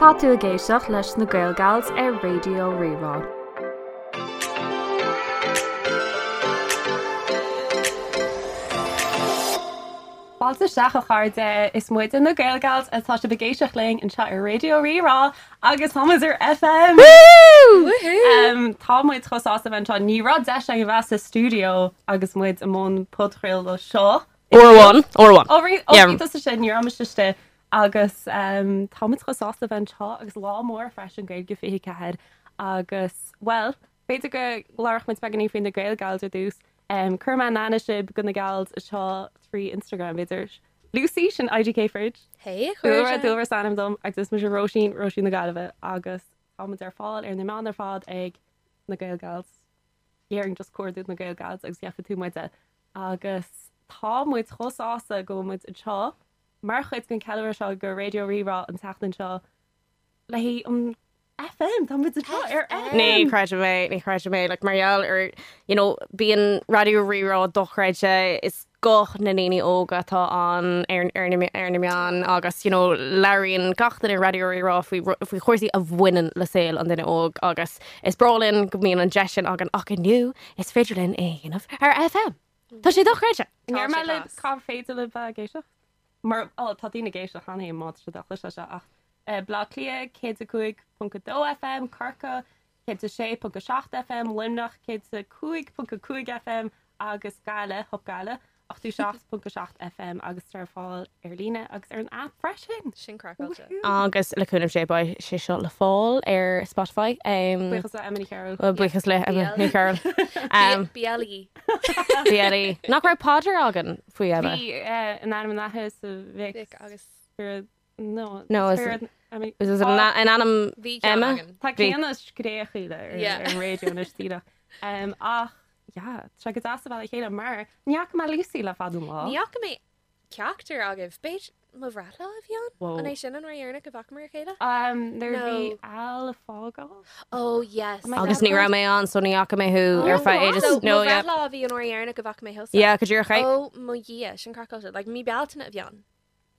Tá tú ag éisteacht leis na Gaelgals ar Raidió Rí-Rá. Fáilte isteach a chairde, is muide na Gaelgals atá sibh ag éisteacht linn anseo ar Raidió Rí-Rá agus tá muid ar FM! Woohoo! Tá muid chomh sásta a bheith anseo. Ní raibh deis againn a bheith sa stiúideo agus muid i mbun podchraoladh seo. Uair amháin, uair amháin. Ó, rí, ó, bhí tusa sin, ní raibh mise istigh. Agus tá muid chomh sásta a bheith anseo agus lá mór freisin Gaeilge 24 agus, bhuel, b'fhéidir go labhródh muid beagáinín faoi na Gaelgals ar dtús. Cuirfidh mé in aithne sibh do na gals anseo trí Instagram, b'fhéidir. Lucy, sin IGK Fridge. Hey, a chairde. Dúlra, Dúlra is ainm dom agus is mise Róisín, Róisín na Gaillimhe agus tá muid ar fáil ar na meáin ar fad ag na Gaelgals. Déarfainn just cuardaigh na Gaelgals agus gheobhaidh tú muide. Agus tá muid chomh sásta go bhfuil muid anseo mar chuid den cheiliúradh seo go Raidió Rí-Rá an tseachtain seo le haghaidh an FM, tá muid anseo ar FM! Ní chreidim é, ní chreidim é, like mar gheall ar, you know, bíonn Raidió Rí-Rá dochreidte, is guth na ndaoine óga atá ann ar, ar na, ar na meáin agus, you know, labhraíonn gach duine ar Raidió Rí-Rá faoi, faoi chúrsaí a bhaineann le saol an duine óg agus is breá linn go mbíonn an deis sin againn ach inniu is féidir linn é a dhéanamh ar FM. Tá sé dochreidte! An ndéarfaidh mé libh cá féidir libh bheith ag éisteacht? Mar, ó, tá daoine ag éisteacht cheana féin má tá siad á chloisteáil seo ach Baile Átha Cliath 105.2 FM, Corcaigh 106.7 FM, Luimneach 105.5 FM agus Gaillimh, Hup Gaillimh, 87.7 FM agus tá ar fáil ar líne agus ar an aip freisin. Sin craiceáilte. Agus le cúnamh Dé beidh sé seo le fáil ar Spotify. Buíochas le Emma Ní Chearúil. Buíochas le Emma Ní Chearúil. BLE. BLE. Nach raibh paidir againn faoi Emma? Bhí, in ainm an Athar is an Mhic. Mhic agus. Spiorad, no, No, is- Spiorad, I mean, Is in ainm Bhí ceann Emma? againn. Tá Bhí. céanna scréachaíle ar Yeah. ar an raidió anois díreach. Ach, yeah, tá sé go deas a bheith le chéile mar ní fhaca mé Lucy le fada an lá. Ní fhaca mé ceachtar agaibh. B'fhéidir mo bhreithlá a bhí ann? Whoa. An é sin an uair dheireanach a bhfacamar a chéile? Um, nuair a bhí No. Al ag fágáil. Oh yes. Am I Agus ní raibh mé ann so ní fhaca mé thú ar feadh ages. So, No, mo yeah. bhreithlá a bhí an uair dheireanach a bhfaca mé thusa. Yeah, go díreach é. Oh mo Dhia, sin craiceáilte. Like mí Bealtaine a bhí ann.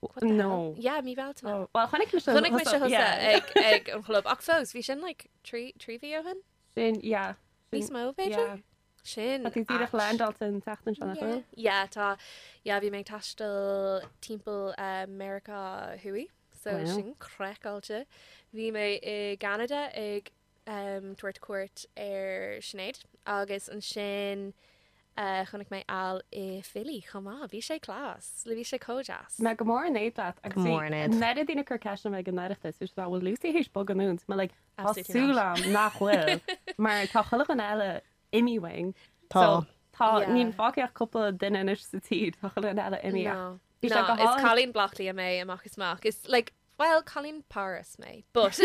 What the hell? No. Yeah, mí Bealtaine. Oh, well, chonaic mise Chonaic mise thusa yeah. ag ag an chlub ach fós bhí sin like trí mhí ó shin? Sin, yeah. Sin, Níos mó b'fhéidir? yeah. Sin Tá tú díreach ait. landáilte an tseachtain seo, nach Yeah. bhfuil? Yeah, tá. Yeah, bhí mé ag taisteal timpeall eh, Meiriceá Thuaidh, so Wow. sin craiceáilte. Bhí mé i gCeanada ag em, tabhairt cuairt ar Sinéad agus ansin eh, chonaic mé Al i Philly chomh maith. Bhí sé class. Bhí sé chomh deas. Mé go mór in éad leat agus Go bhí mór in éad. an oiread daoine ag cur ceisteanna ag an Oireachtas, bhí siad like, bhfuil Lucy théis bogadh anonn? Mé like, Tá Absolutely súil not. agam nach bhfuil, mar tá chuile dhuine eile imithe uainn. Tá. So, tá, Yeah. níl fágtha ach cúpla duine anois sa tír, tá chuile dhuine eile imithe. No. Bhí sé No, go is hálainn. cailín Bleá Cliath mé amach is amach. Is like, well, cailín Paris mé, but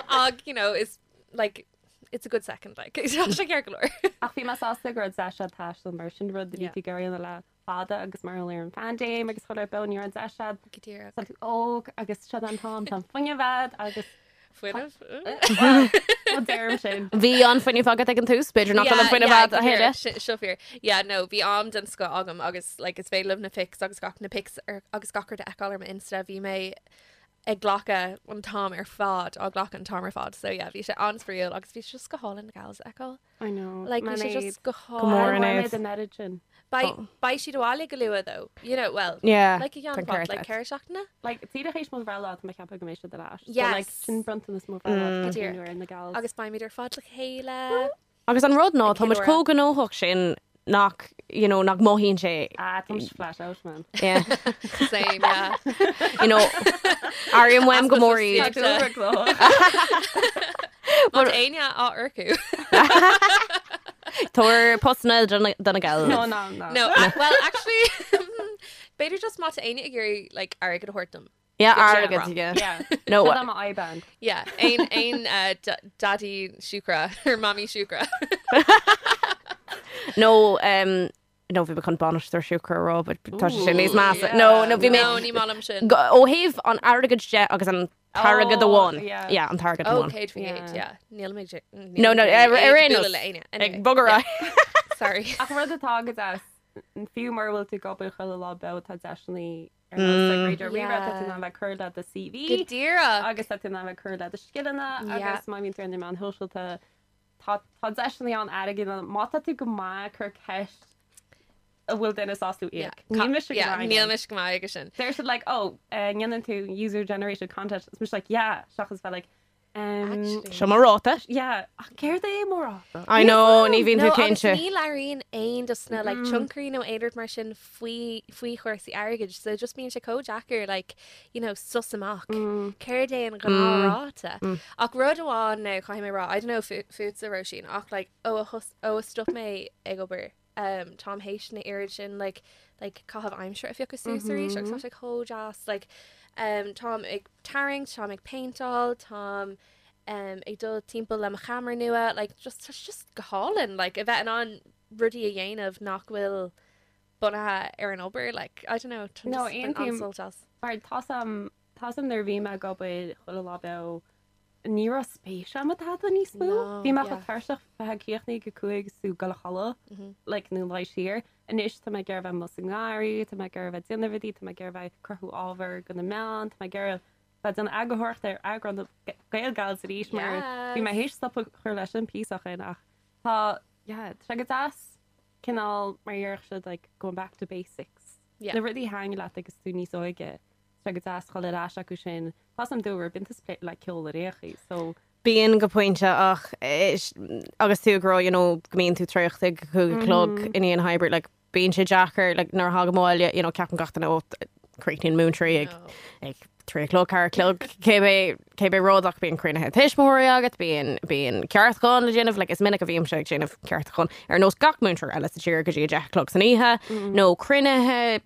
ach, you know, is like it's a good second like. Tá sé ceart go leor. Ach bhí mé sásta go raibh deis agat taisteal mar sin rud a bhí Yeah. tú ag iarraidh a dhéanamh le fada agus mar gheall ar an phaindéim agus chuile rud ní raibh deis agat. Go díreach. Tá tú óg agus seo an t-am, tá an fuinneamh agat agus Fuinneamh? Well, deirim sin. Bhí an fuinneamh agat ag an tús, b'fhéidir nach bhfuil an fuinneamh agat a thuilleadh. Seo fíor. Yeah, no, bhí am den scoth agam agus like, is féidir libh na pics agus gach na pics ar, agus gach rud a fheiceáil ar m'Insta. Bhí mé ag glacadh an t-am ar fad, á glacadh an t-am ar fad. So yeah, bhí sé an-spraíúil agus bhí sé just go hálainn na gals a fheiceáil. I know. Like, bhí sé just go mór hálainn. in Mé éad. den oiread sin. Beidh beidh siad abhaile go luath though. You know, well, Yeah, like a tá ceann ceart like agat. ceithre seachtaine? Like, díreach théis mo bhreithlá tá mé ag ceapadh go mbeidh siad ar ais. So, Yes. like, sin bronntanas mo bhreithlá Go mm. díreach. nuair na gals. Agus beimid ar fad le chéile. Agus an rud ná Ag tá muid ceiliúradh. chomh gnóthach sin nach, you know, nach mothaíonn sé. Ah, tá mise flat out, man. Yeah. Same, yeah. You know, airím uaim go mór iad. Tá dúlra glóthach. Má tá éinne á earcú. Tabhair postanna do na do na gals. No, no, no. No, well, actually, b'fhéidir just má tá éinne ag iarraidh like, airgead a thabhairt dom. Yeah, Yeah, airgead, yeah. Yeah. No, Seo mo IBAN. Yeah, aon aon uh, da- daddy siúcra or mommy siúcra. No, um, no, bhí mé chun bainisteoir siúcra a rá, but tá sé sin níos measa. Yeah. No, no, bhí mé No, ní maith liom sin. Go- ó thaobh an airgead de agus an t-airgead Oh, amháin. yeah. Yeah, an t-airgead Oh, amháin. céad faoin Yeah. gcéad, yeah. Níl mé No, no, ar- ar aon nós. le éinne. Ag Anyway, bogadh sorry. Ach rud atá go deas. fiú mura bhfuil tú ag obair chuile lá beo tá deiseanna ar nós like Raidió Rí-Rá, tá tú in ann bheith ag cur le do CV. Go díreach. Agus tá tú in ann bheith ag cur le do scileanna agus má bhíonn tú ar na meáin shóisialta tá tá deiseanna ann airgead a má tá tú go maith cuir ceist an bhfuil duine sásta íoc. Níl mise go maith. Níl mise go maith aige sin. Deir siad like oh ndéanann tú user generated content is mise like yeah seachas bheith like Seo mo ráta. Yeah, ach céard é mo ráta? I know, ní bhíonn tú cinnte. Agus ní labhraíonn aon dos na like tionchairí nó aon rud mar sin faoi faoi chúrsaí airgid, so just bíonn sé chomh deacair like you know sos amach céard é an gnáthráta. Ach rud amháin now caithfidh mé rá, I don't know fútsa Róisín ach like ó a ó a stop mé ag obair um, táim théis na oiread sin like, like, caitheamh aimsire a phiocadh suas arís agus tá sé chomh deas like, um, táim ag tarraingt, táim ag péinteáil, táim um, ag dul timpeall le mo cheamara nua, like, just, tá sé just go hálainn like, a bheith in ann rudaí a dhéanamh nach bhfuil bunaithe ar an obair like, I don't know, tá No, just been aontaím. an-sult as. Mar tá am tá am nuair a bhí mé ag obair chuile lá beo ní raibh spéis agam i dtada níos mó. No, Bhí mé yeah. chomh tuirseach bheith ag críochnú ag 5 is tú ag dul a chodladh, like, nó luí siar. Anois tá mé ag iarraidh bheith amuigh sa ngarraí, tá mé ag iarraidh bheith ag déanamh rudaí, tá mé ag iarraidh bheith ag cruthú ábhar do na meáin, tá mé ag iarraidh bheith ag déanamh eagarthóireachta ar eagrán na Gael Gals arís mar bhí mé théis stop a chur leis an píosa sin ach tá, yeah, tá sé go deas cineál mar a déarfadh siad like going back to basics. Yeah. Na rudaí a thaitin leat agus tú níos óige. Tá sé go deas dhul ar ais acu sin. Tá 's a'm dúr bíonn tú split le ceol ar aon chaoi so. Bíonn go pointe ach agus tú ag rá you know go mbíonn tú traochta ag a 5 a chlog i ndiaidh na hoibre like bíonn sé deacair like nuair a thagaim abhaile you know ceapann gach duine ó críochnaíonn múinteoirí ag ag 3 a chlog 4 a chlog cibé cibé rud ach bíonn cruinnithe tuismitheoirí agat bíonn bíonn ceartúcháin le déanamh like is minic a bhímse ag déanamh ceartúcháin ar nós gach múinteoir eile sa tír go dtí a 10 a chlog san oíche nó cruinnithe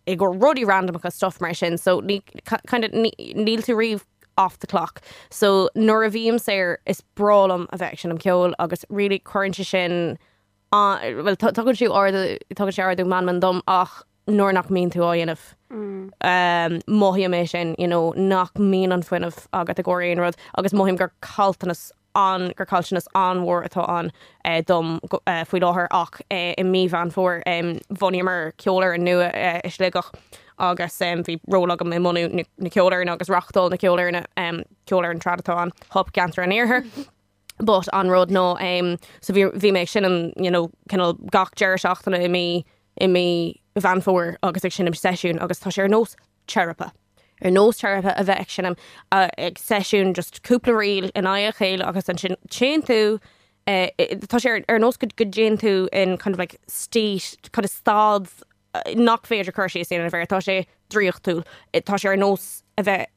i gcomhair rudaí randamacha stuff mar sin so ní kind of níl tú riamh off the clock. So nuair a bhím saor is breá liom a bheith ag seinm ceoil agus really cuireann sé sin well tugann sé ardú tugann sé ardú meanman dom ach nuair nach mbíonn tú á dhéanamh um, mothaím é sin you know, nach mbíonn an fuinneamh agat i gcomhair aon rud agus mothaím gur caillteanas an gur caillteanas an-mhór atá ann dom faoi láthair ach i mí Mheán Fómhair bhunaíomar ceolfhoireann nua i Sligeach agus bhí ról agam i mbunú na ceolfhoirne agus reáchtáil na ceolfhoirne, ceolfhoireann trad atá ann, Hup gCeantar an Iarthair. But an rud ná so bhí bhí mé ag seinm you know cineál gach deireadh seachtaine i mí i mí Mheán Fómhair agus ag seinm seisiún agus tá sé ar nós teiripe. Ar nós teiripe a bheith ag seinm ag seisiún just cúpla ríl in aghaidh a chéile agus ansin téann tú tá sé ar nós go dtéann tú in kind of like state kind of staid nach féidir cur síos a dhéanamh air, tá sé draíochtúil. Tá sé ar nós a bheith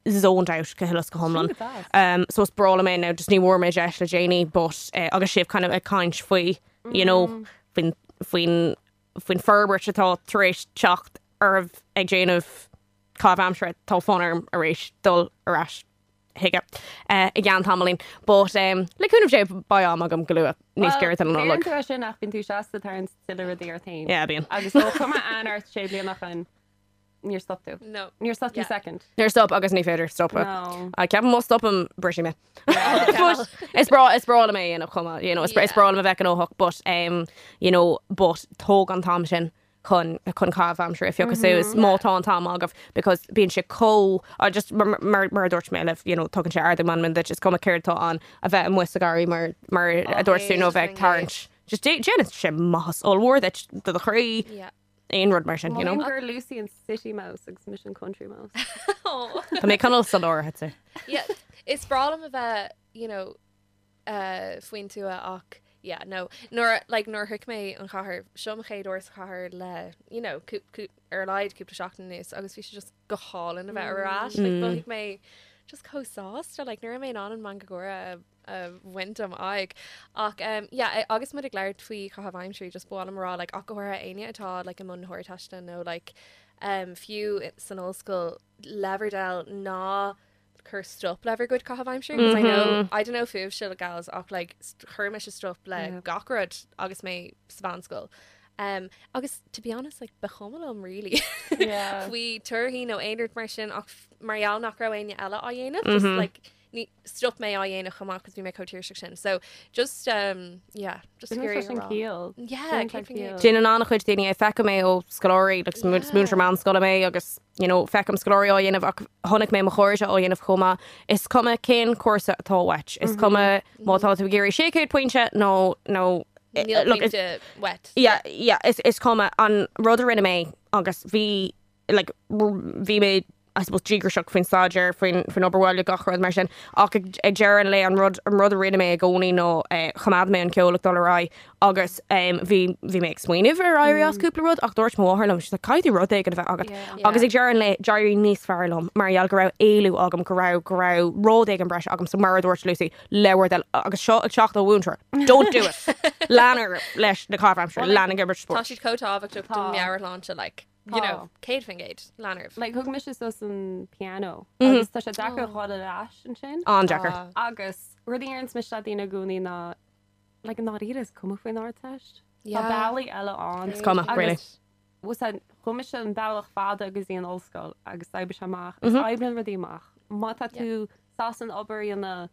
zoned out go huile is go hiomlán. So is breá liom é now just ní bhfuair mé deis le déanaí but agus sibh kind of ag caint faoi you know faoin faoin faoin forbairt atá tar éis teacht oraibh ag déanamh caitheamh aimsire, tá fonn orm arís dul ar ais chuige i gceann tamaillín. But le cúnamh Dé beidh am agam go luath, níos giorra don Nollaig. Deireann tú é sin ach bíonn tú seasta ag tarraingt tuilleadh rudaí ort féin. Yeah, bíonn. Agus ó chuir mé aithne ort sé bliana ó shin, Níor stop tú. No. Níor stop tú second. Níor stop agus ní féidir stopadh. No. Ceapaim má stopaim brisfidh mé. But is breá is breá liom é a dhéanamh chomh maith, you know, is is breá liom a bheith gnóthach but um, you know, but tóg an t-am sin chun chun caitheamh aimsire a phiocadh suas má tá an t-am agaibh because bíonn sé chomh uh, just mar mar mar a dúirt mé libh, you know, tugann sé ardú meanman duit, is cuma céard atá ann a bheith amuigh sa gharraí mar mar a dúirt tú nó a bheith ag tarraingt. Just déanann sé maitheas ollmhór duit do do chroí. Yeah. aon rud mar sin, you know. Mothaím gur Lucy an city mouse agus mise an country mouse. Tá mé cineál sa lár, I'd say. Yeah, is breá liom a bheith, you know, uh, faoin tuath ach yeah, no. Nuair, like, nuair a shroich mé an chathair, seo mo chéad uair sa chathair le, you know, cú, cú, ar a laghad cúpla seachtain anuas agus bhí sé just go hálainn a bheith ar ais. Like, mhothaigh mé just chomh sásta, like, ní raibh mé in ann an meangadh gáire a a bhaint ó m'aghaidh. Ach um, yeah, agus muid ag labhairt faoi chaitheamh aimsire, just ba mhaith liom a rá like, ach go háirithe éinne atá like, i mbun na hArdteiste nó like, um, fiú san ollscoil le bhur dtoil ná cuir stop le bhur gcuid caitheamh aimsire because I know I don't know fúibhse gals ach like chuir mise stop le yeah. gach rud agus mé sa mheánscoil. Um, agus to be honest like, ba chuma liom really yeah. faoi torthaí nó aon rud mar sin ach mar gheall nach raibh éinne eile á dhéanamh mm -hmm. just like. Ní, stop mé á dhéanamh chomh maith cos bhí mé chomh tuirseach sin. So just um, yeah, just Déanann sé sin ciall. Yeah, 100%. Déanann an-chuid daoine é, feicim é ó scoláirí, like, is múinteoir meánscoile mé agus you know, feicim scoláirí á dhéanamh ach chonaic mé mo chairde á dhéanamh chomh maith. Is cuma cén cúrsa atá uait, is cuma má tá tú ag iarraidh 600 pointe nó nó Níl look, is- pointe uait. Yeah, yeah, is, is cuma an rud a rinne mé agus bhí like, bhí mé I suppose díograiseach faoin staidéar, faoin faoin obair bhaile, gach rud mar sin. Ach ag ag deireadh an lae an rud an rud a rinne mé i gcónaí ná eh, choimeád mé an ceol ag dul ar aghaidh agus em, bhí bhí mé ag smaoineamh ar éirí as cúpla rud ach dúirt mo mháthair liom, she's like, caithfidh tú rud éigin a bheith agat. Yeah. Agus ag deireadh an lae d'éirigh níos fearr liom mar gheall go raibh éalú agam, go raibh go raibh rud éigin breise agam, so mar a dúirt Lucy, le bhur dtoil agus seo ag teacht ó mhúinteoir. Don't do it! Lean leis na caithimh aimsire, lean ag imirt Tá spóirt. siad chomh tábhachtach don Tá. meabhairshláinte like. You know, 100% lean oraibh. Like, thug mise sos an piano agus tá sé deacair dhul ar ais ansin. An-deacair. Ah. Agus rud a deireanns mise le daoine i gcónaí ná like, i ndáiríre is cuma faoin Ardteist. Tá Yeah. bealaí eile ann. Is cuma, Agus really. bhfuil a fhios a'd, chuaigh mise an bealach fada go dtí an ollscoil agus d'oibrigh sé amach. Is oibríonn rudaí amach. Má tá tú sásta an obair a dhéanamh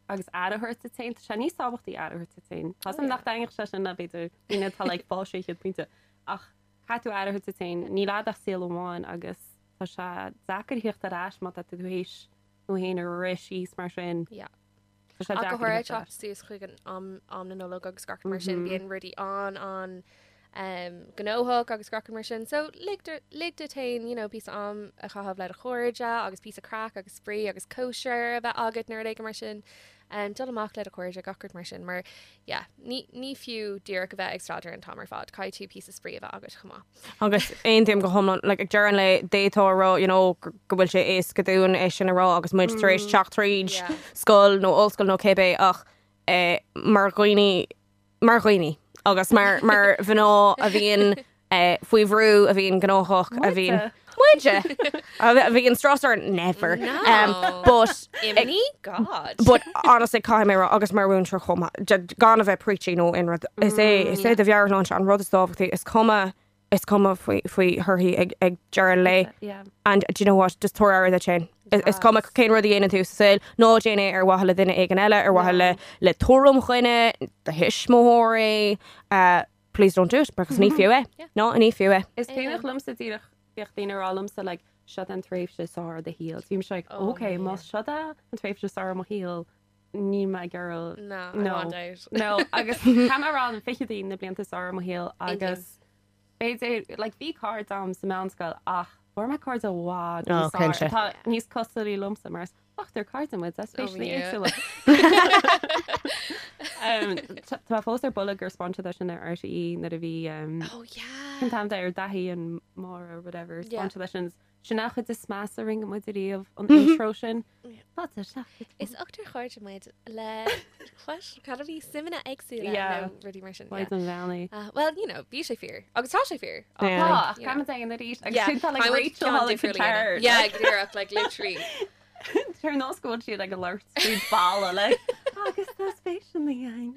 agus aire a thabhairt duit féin, tá sé níos tábhachtaí aire a thabhairt duit féin. Tá a fhios a'm nach dtaitneodh sé sin le b'fhéidir daoine atá like fáil 600 pointe ach Caithfidh tú aire a thabhairt duit féin, níl a'd ach saol amháin agus tá sé deacair theacht ar ais má tá tú théis tú féin a rith síos mar sin. Yeah. Tá sé Ach go deacair háirithe theacht ar teacht ais. suas chuig an am, am na Nollag agus gach rud mar sin, bíonn rudaí an, an um, gnóthach agus gach rud mar sin. So lig du- lig duit féin, you know, píosa am a chaitheamh le do chairde agus píosa craic agus spraoi agus cóisir a bheith agat nó rud éigin mar sin. Um, dul amach le do chairde gach rud mar sin mar yeah, ní, ní fiú díreach a bheith ag staidéar an t-am ar fad, caithfidh tú píosa spraoi a bheith agat chomh maith. Agus aontaím go hiomlán, like, ag deireadh an lae, d'fhéadfá a rá, you know, go bhfuil sé éasca dúinn é sin a rá agus muid tar éis teacht tríd Yeah. scoil nó ollscoil nó cébé ach eh, mar dhaoine, mar dhaoine agus mar, mar mhná a bhíonn eh, faoi bhrú, a bhíonn gnóthach, a bhíonn Muide. Muide! A bhíonn strus orainn, never. No. Um, but Imní? God. But honestly caithfidh mé rá agus mar mhúinteoir chomh maith, gan a bheith preachy nó aon rud, is é is é do mheabhairshláinte an rud is tábhachtaí, is cuma is cuma faoi faoi thorthaí ag ag deireadh an lae. Yeah. And do you know what, just tabhair aire duit féin. Is is cuma cén rud a dhéanann tú sa saol, ná déan é ar mhaithe le duine éigin eile, ar mhaithe le le tuairim dhuine, do thuismitheoirí, uh, please don't do it because ní fiú é. No, ní fiú é. Is cuimhneach liomsa díreach bhíodh daoine ag rá liomsa like seo an tréimhse is fearr i do shaol. Bhí mise like Oh, ok, man. má seo é an tréimhse is fearr i mo shaol, níl mé ag iarraidh No, I No. want out. No, agus caithfidh mé a rá na fichidí na blianta is fearr i mo shaol agus b'fhéidir like bhí cairde agam sa meánscoil ach fuair mé cairde i bhfad Oh, níos fearr cinnte. atá níos cosúlaí liomsa mar is ochtar cairde muid, Oh, especially yeah. éagsúla. Um, Tá mé fós ar buile gur spáin siad sin ar RTÉ nuair a bhí um, Oh yeah. Cén t-ainm ar Daithí and Máire or whatever Yeah. spáin siad sin sin an chuid is measa a rinne muid ariamh an intro sin. Fáilte isteach. Is ochtar cairde muid le what? Cad a bhí suimeanna éagsúla Yeah. nó rudaí mar sin. Maidir Yeah. an bheannaí. Well, you know, bhí sé fíor. Agus tá sé fíor. Yeah. Tá, ach you know. caithfimid é an arís agus Yeah. sin tá like I would Rachel ceann Holly difriúil a dhéanamh. Guitar. Yeah, díreach, like literally. Ar nós go bhfuil siad ag labhairt tríd balla le agus tá spéis in the gang.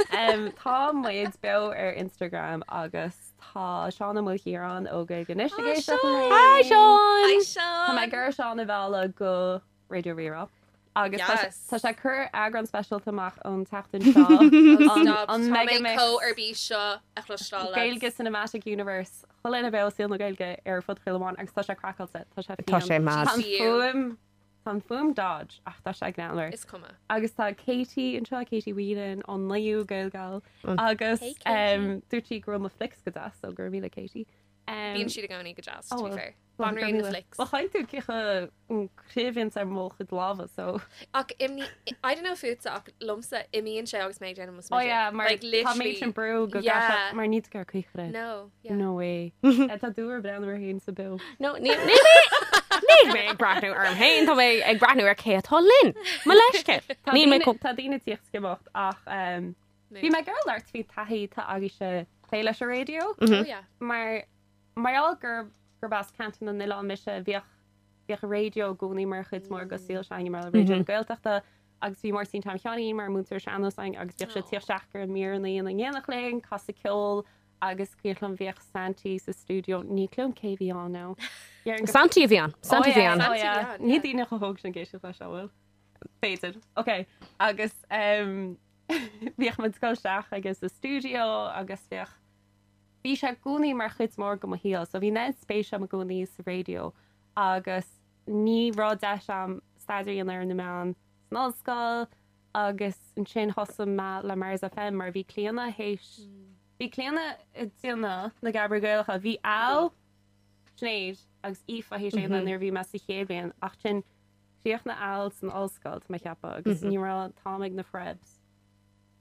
Um, tá muid beo ar Instagram agus tá Seán Ó Maoilchiaráin ó Gaeilge Anois ag Hi, éisteacht Seán. linn. Hi Seán! Hi, Tá mé Seán. ag iarraidh Seán a mhealladh go Raidió Rí-Rá. Agus tá sé- Yes. tá sé ag cur eagrán speisialta amach an tseachtain seo. Oh, An- stop. an Tá mé Megamix. chomh ar bís seo a chloisteáil. Gaeilge Cinematic Universe chuile dhuine beo saol na Gaeilge ar fud chuile amháin agus tá sé craiceáilte, tá sé Tá sé fiáin. mad. Tá an GU. fuaim tá an fuaim dodge ach tá sé greannmhar. Is cuma. Agus tá Katie anseo, Katie Whelan an naoú Gaelgal agus Hey, Katie. um, dúirt sí go raibh mo flics go deas so go raibh míle Katie. Um, Bíonn siad i gcónaí go deas, oh, to be well. fair. well, Banríon na flics. Well, chaith tú cíocha an craobhíonn ar mo chuid lámha so. Ach imní, I don't know fútsa ach liomsa imíonn sé agus mé ag déanamh mo Oh smideadh. yeah, mar Like, tá literally. méid sin brú go Yeah. yeah. mar ní gur cuichre. No, yeah. No way. Eh, Tá dúr breathnú air féin sa beo. No, ní ní mé níl mé ag breathnú orm féin, tá mé ag breathnú ar cé atá linn. Mo leithscéal. Tá Níl mé daoine- chomh- Tá daoine ag tíocht isteach ach um, Mood. bhí mé ag iarraidh labhairt faoi taithí atá agaibhse plé leis an raidió Oh yeah. mar mar gheall gur gurb as Ceantar na nOileán mise bhíodh bhíodh an raidió i gcónaí mar chuid mór de saol s'againne mar Raidió na Gaeltachta agus bhí Máirtín Tom Sheáinín mar múinteoir sean-nós againn agus bhíodh sé Aw. ag tíocht isteach ar an míreanna in éineacht linn, casadh ceol agus cuimhin liom bhíodh Santy sa stiúideo ní cuimhin liom cé bhí ann now. Dhéarfainn go- Santy a bhí ann. Santy Oh, a bhí yeah, ann. oh, Santy yeah. bhí ann, Ní yeah. daoine chomh hóg sin ag éisteacht leis, an bhfuil? B'fhéidir. Ok. Agus um, bhíodh muid ag dul isteach agus sa stiúideo agus bhíodh bhí sé i gcónaí mar chuid mór de mo shaol. So bhí an spéis agam i gcónaí sa raidió agus ní raibh deis agam staidéar a dhéanamh ar na meáin san ollscoil agus ansin thosaigh mé le Mars FM mar bhí Clíona théis bhí Clíona ag déanamh na Geamairí Gaelacha. Bhí Al, Sinéad agus Aoife théis é a dhéanamh nuair a bhí mé sa chéad bhliain ach sin chríochnaigh Al san ollscoil tá mé ag ceapadh agus ní raibh an t-am ag na Frebs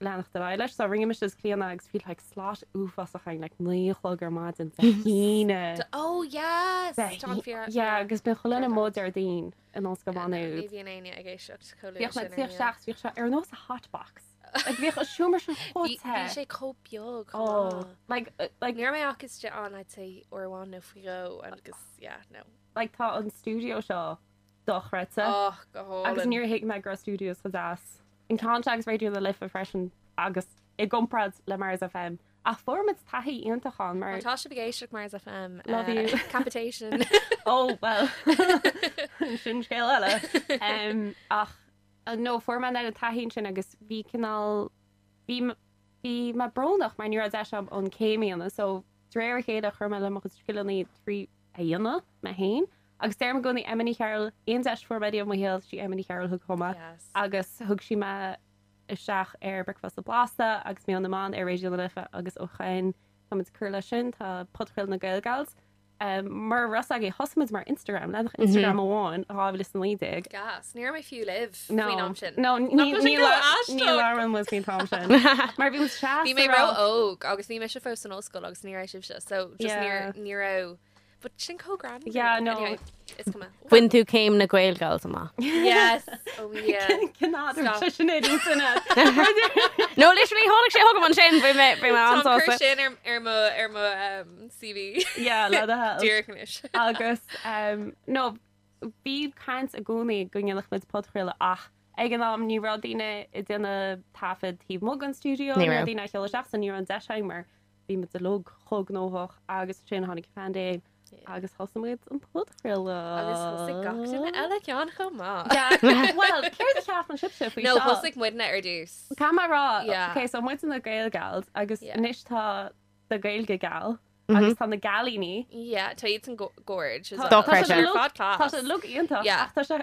leanacht ar aghaidh leis so rinne mise is Clíona agus bhí like slot uafásach againn like 9 a chlog ar maidin Dé hAoine. Oh yes! Tá an fíor. Yeah agus bíonn chuile dhuine amuigh Déardaoin in Ollscoil Mhá Nuad. Ní bhíonn éinne ag éisteacht chomh luath Bhíodh sin mé ar ag tíocht an isteach bhíodh sé ar nós a hot box. Like bhíodh an seomra sin chomh Bhí te. bhí sé chomh beag chomh Oh maith. like like Ní raibh mé ach istigh ann I'd say uair amháin nó faoi dhó agus yeah no. Like tá an stiúideo seo dochreidte. Oh, go hálainn. Agus níor thuig mé go raibh studios chomh deas. An ceann seo agus Raidió na Life freisin agus i gcomparáid le Mars FM. Ach fuair muid taithí iontach ann mar. Má tá sibh ag éisteacht Mars FM. Love you. Capitation. Oh well. Sin scéal eile. Um, ach no, fuair mé an taithí sin agus bhí cineál bhí bhí mé brónach mar ní raibh deis agam an céim a dhéanamh so de réir a chéile chuir mé le mo chuid scileanna trí a dhéanamh mé féin. Agus deirim i gcónaí Emma Ní Chearúil, aon deis a fuair mé riamh i mo shaol, sí Emma Ní Chearúil a thug chugam é. Yes. Agus thug sí mé isteach ar Bricfeasta Blasta agus Meon na mBan ar Raidió na Life agus ó shin táimid ag cur leis sin, tá podchraoladh na Gaelgals. Um, mar a raibh a fhios agaibh, thosaigh muid mar Instagram, leathanach Instagram amháin, 2019. Gas, ní raibh mé fiú libh No, faoin am sin. no, Nach ní bhfuil sin ní go la- aisteach? ní labhrann muid faoin t-am sin. Mar bhí muid seasta Bhí mé rá- ró-óg agus bhí mise fós san ollscoil agus ní raibh sibhse, so just Yeah. níor ní raibh But sin chomh greannmhar. Yeah, no. Anyway, is cuma. Bhain tú céim na Gaelgals amach. Yes. Oh yeah. Cinn Stop. sin sin No, literally tháinig sé chugam ansin bhí mé bhí mé Tá cur an-sásta. sin ar ar mo ar mo um, CV. Yeah, le do thoil. Díreach anois. Agus um, no, bhí caint i gcónaí go ndéanfadh muid podchraoladh ach ag an am ní raibh daoine ag déanamh taifead taobh amuigh den stiúideo, Ní ní raibh raibh. daoine ag seoladh isteach so ní raibh an deis againn mar Bhí muid uilig chomh gnóthach agus ansin tháinig an phaindéim agus thosaigh muid an podchraoladh. Agus thosaigh gach duine eile ceann chomh maith. Yeah. Well, céard a cheapann sibhse faoi No, seo? thosaigh muidne ar dtús. Caithfidh mé a rá, Yeah. okay, so muid na Gaelgals agus Yeah. anois tá na Gaeilge Gal agus tá na Gailíní. Yeah, tá iad san gorge as Tá- well. Dochreidte. Tá sé Ar fad class. Tá sé uilig iontach Yeah. ach tá sé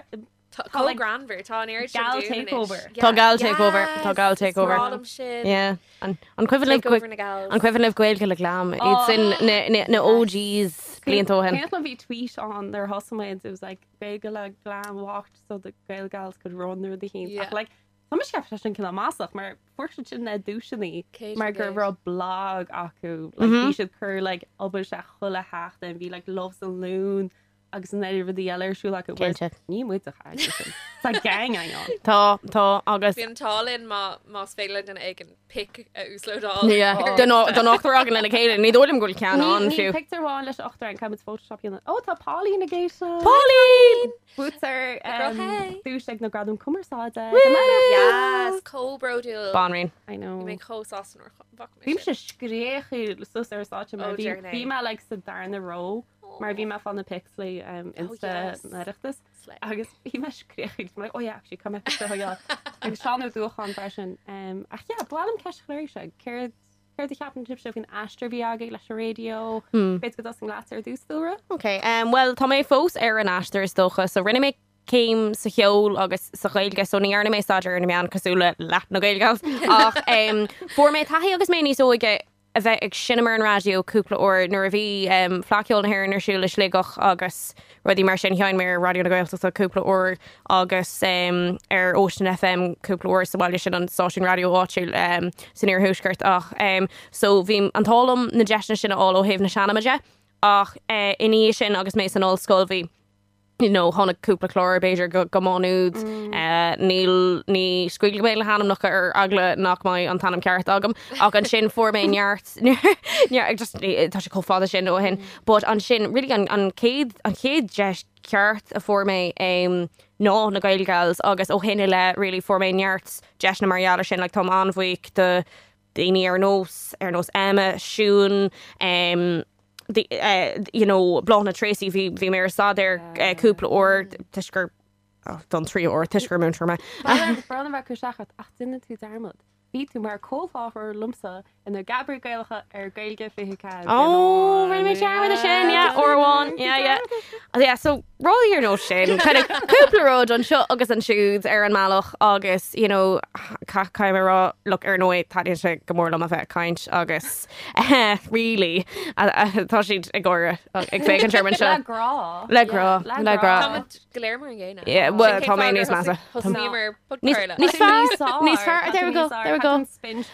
Tá Tá, chomh like, greannmhar, tá an oiread sin gal dúinn anois. takeover. Yeah. Tá gal takeover, tá gal Yes, is takeover. breá liom sin. Yeah. An an cuimhin libh Takeover na gals. an cuimhin libh Gaeilge le Glam iad sin na na na OGs blianta ó shin. Cén bhí tweet on their thosaigh muid, it was like Gaeilge le Glam walked so the Gaelgals could run through the heat. Yeah. Ach like Tá mise ag ceapadh sin cineál maslach mar fuair siad sin na duaiseanna Céad mar gur faoin gcéad. raibh blog acu like, bhí siad cur like obair sé chuile sheachtain bhí like Loves and Loon agus an oiread rudaí eile ar siúl acu. Whereas Cinnte. Ní muid a chaith sin. Tá gang ann. Tá tá agus Bhí an t-ádh linn má más féidir le duine éigin pic a uaslódáil. Yeah. Ar Don don ochtar againn lena chéile, ní dóigh liom go bhfuil ceann ann Ní fiú. pictiúr amháin leis an ochtar againn caithfidh muid Photoshop a dhéanamh. Ó tá Pauline ag éisteacht. Pauline! Buaiteoir Girl, hey. duais ag na Gradaim Cumarsáide. Yes, chomh bródúil. Banríon. I know. Bhí mé chomh sásta nuair a bhfaca mé Bhí sin. mise scréachaíl suas ar stáitse mar Oh, bhí dear nay. bhí mé like sa darna row mar bhí mé ag fáil na pics le um, Insta yes. na Oireachtas Slay. agus bhí mé scréachaíl like, oh yeah, actually caithfidh mé picture a thógáil. Agus Seán Ó Dúacháin freisin. Um, ach yeah, ba mhaith liom ceist a chur oraibhse. Céard céard a cheapann sibhse faoin aistear a bhí agaibh leis an raidió? B'fhéidir go dtosóinn leat ar dtús Dúlra? Ok, um, well tá mé fós ar an aistear is dócha, so rinne mé céim sa cheol agus sa Ghaeilge, so ní dhearna mé staidéar ar na meáin cosúil le leath na Gaelgals ach um, fuair mé taithí agus mé níos óige a bheith ag seinm ar an raidió cúpla uair nuair a bhí Fleadh Cheoil na hÉireann ar siúl i Sligeach agus rudaí mar sin. Sheinn mé ar Raidió na Gaeltachta cúpla uair agus ar Ocean FM cúpla uair sa bhaile sin, an stáisiún raidió áitiúil san iarthuaisceart. Ach so bhí an t-ádh liom na deiseanna sin a fháil ó thaobh na seinme de ach ina dhiaidh sin agus mé san ollscoil bhí you know, tháinig cúpla clár b'fhéidir go, go Má Nuad. Níl, ní scaoilfidh mé le hainmneacha ar eagla nach mbeidh an t-ainm ceart agam. Ach ansin fuair mé neart, neart, just, tá sé chomh fada sin ó shin. But ansin, really an, an chéad, an chéad deis ceart a fuair mé um, ná na Gaelgals agus ó shin i leith really fuair mé neart deiseanna mar gheall ar sin. Like, táim an-bhuíoch do daoine ar nós, ar nós Emma, Siún, um, the, you know, Bláthnaid Treacy, bhí, bhí mé ar staidéar cúpla uair toisc gur don tríú huair toisc gur múinteoir mé. Brón orm a bheith ag cur isteach ort ach déanann tú dearmad. Bhí tú mar comhláithreoir liomsa ar na Geabairí Gaelacha ar Gaeilge 24. Ó, rinne mé dearmad de sin, yeah, uair amháin, yeah, yeah. Yeah, so rudaí ar nós sin, kind of cúpla rud anseo agus ansiúd ar an mbealach agus, you know, caithfidh mé a rá, look, ar ndóigh, taitníonn sé go mór liom a bheith ag caint agus really, tá siad ag gáire ag féachaint orm anseo. Le grá. Le grá, le grá. Táimid go léir mar an gcéanna. Yeah, well, tá mé níos measa. Thosnaíomar podchraoladh. Níos fearr, níos fearr, there we go, there we go.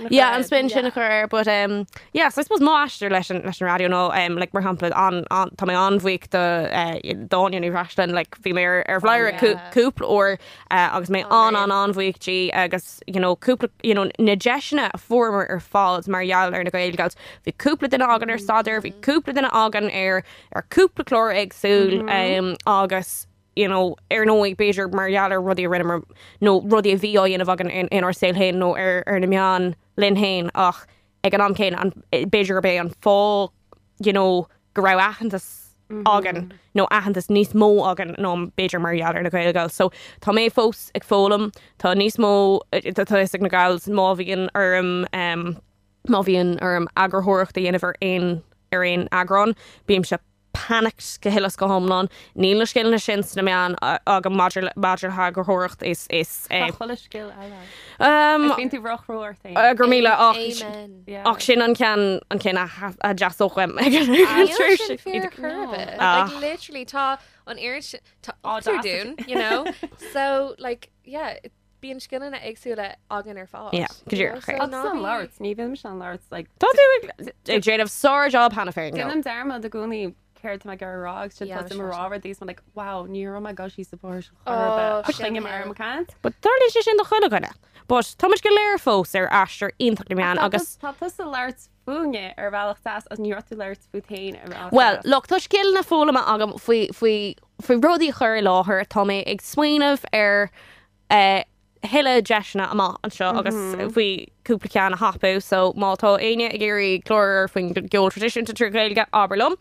Yeah, an spin sin a chur air, but um, yeah, so I suppose mo aistear leis an, leis an raidió nó um, like, mar shampla an, an, tá mé an-bhuíoch do uh, d'Áine Ní Bhreisleáin, like, bhí mé ar, ar Bhladhaire yeah. cúpla uair uh, agus mé an an an-bhuíoch di agus you know, cúpla you know, na deiseanna a fuaireamar ar fad mar gheall ar na Gaelgals. Bhí cúpla duine againn ar staidéar, bhí cúpla duine againn ar ar cúpla clár éagsúil agus you know, ar ndóigh b'fhéidir mar gheall ar rudaí a rinneamar nó rudaí a bhí á dhéanamh againn in, inár saol féin nó ar, ar na meáin linn féin ach ag an am céanna an, b'fhéidir gurb é an fáth you know, go raibh aitheantas againn nó aitheantas níos mó againn ná b'fhéidir mar gheall ar na Gaelgals. So tá mé fós ag foghlaim, tá níos mó tá a fhios ag na gals má bhíonn orm um, Má bhíonn orm eagarthóireacht a dhéanamh ar aon ar aon eagrán, bímse panicked go huile is go hiomlán. Níl na scileanna sin sna meáin agam maidir le maidir le heagarthóireacht is is Tá chuile scil eile. Um, Is bíonn tú ró-chrua ort féin. Go raibh míle ach Amen. Yeah. ach sin an ceann an ceann a a dteastódh uaim ag an Níl tréimhse. sin fíor ar chor ar bith. Ah. Like literally tá an oiread sin tá Á, ochtar deas. dúinn, you know? So like yeah, Bíonn scileanna éagsúla againn ar fad. Yeah, go díreach, So yeah. Agus ná an bí- labhairt, ní bhíonn mise an labhairt, like, Tá tú ag ag déanamh sár-job cheana féin. though. Déanaim dearmad i gcónaí céard tá mé ag iarraidh a rá agus sin Yeah, tá mé ag sure. rá rudaí is mé like, wow, ní raibh mé ag dul síos sa bhóthar sin chor Oh, ar bith. Ach sin coinním é. orm ag caint. But tarlaíonn sé sin do chuile dhuine. But tá muid go léir fós ar aistear iontach na meán Tá agus tá tusa ag labhairt fúinne ar bhealach deas agus ní raibh tú ag labhairt fút féin ar bhealach Well, deas. look, tá scileanna foghlamtha agam faoi faoi faoi rudaí a chur i láthair. Tá mé ag smaoineamh ar eh, thuilleadh deiseanna amach anseo agus faoi cúpla ceann a thapú so má tá éinne ag iarraidh clár faoin gceol traidisiúnta trí Ghaeilge abair liom.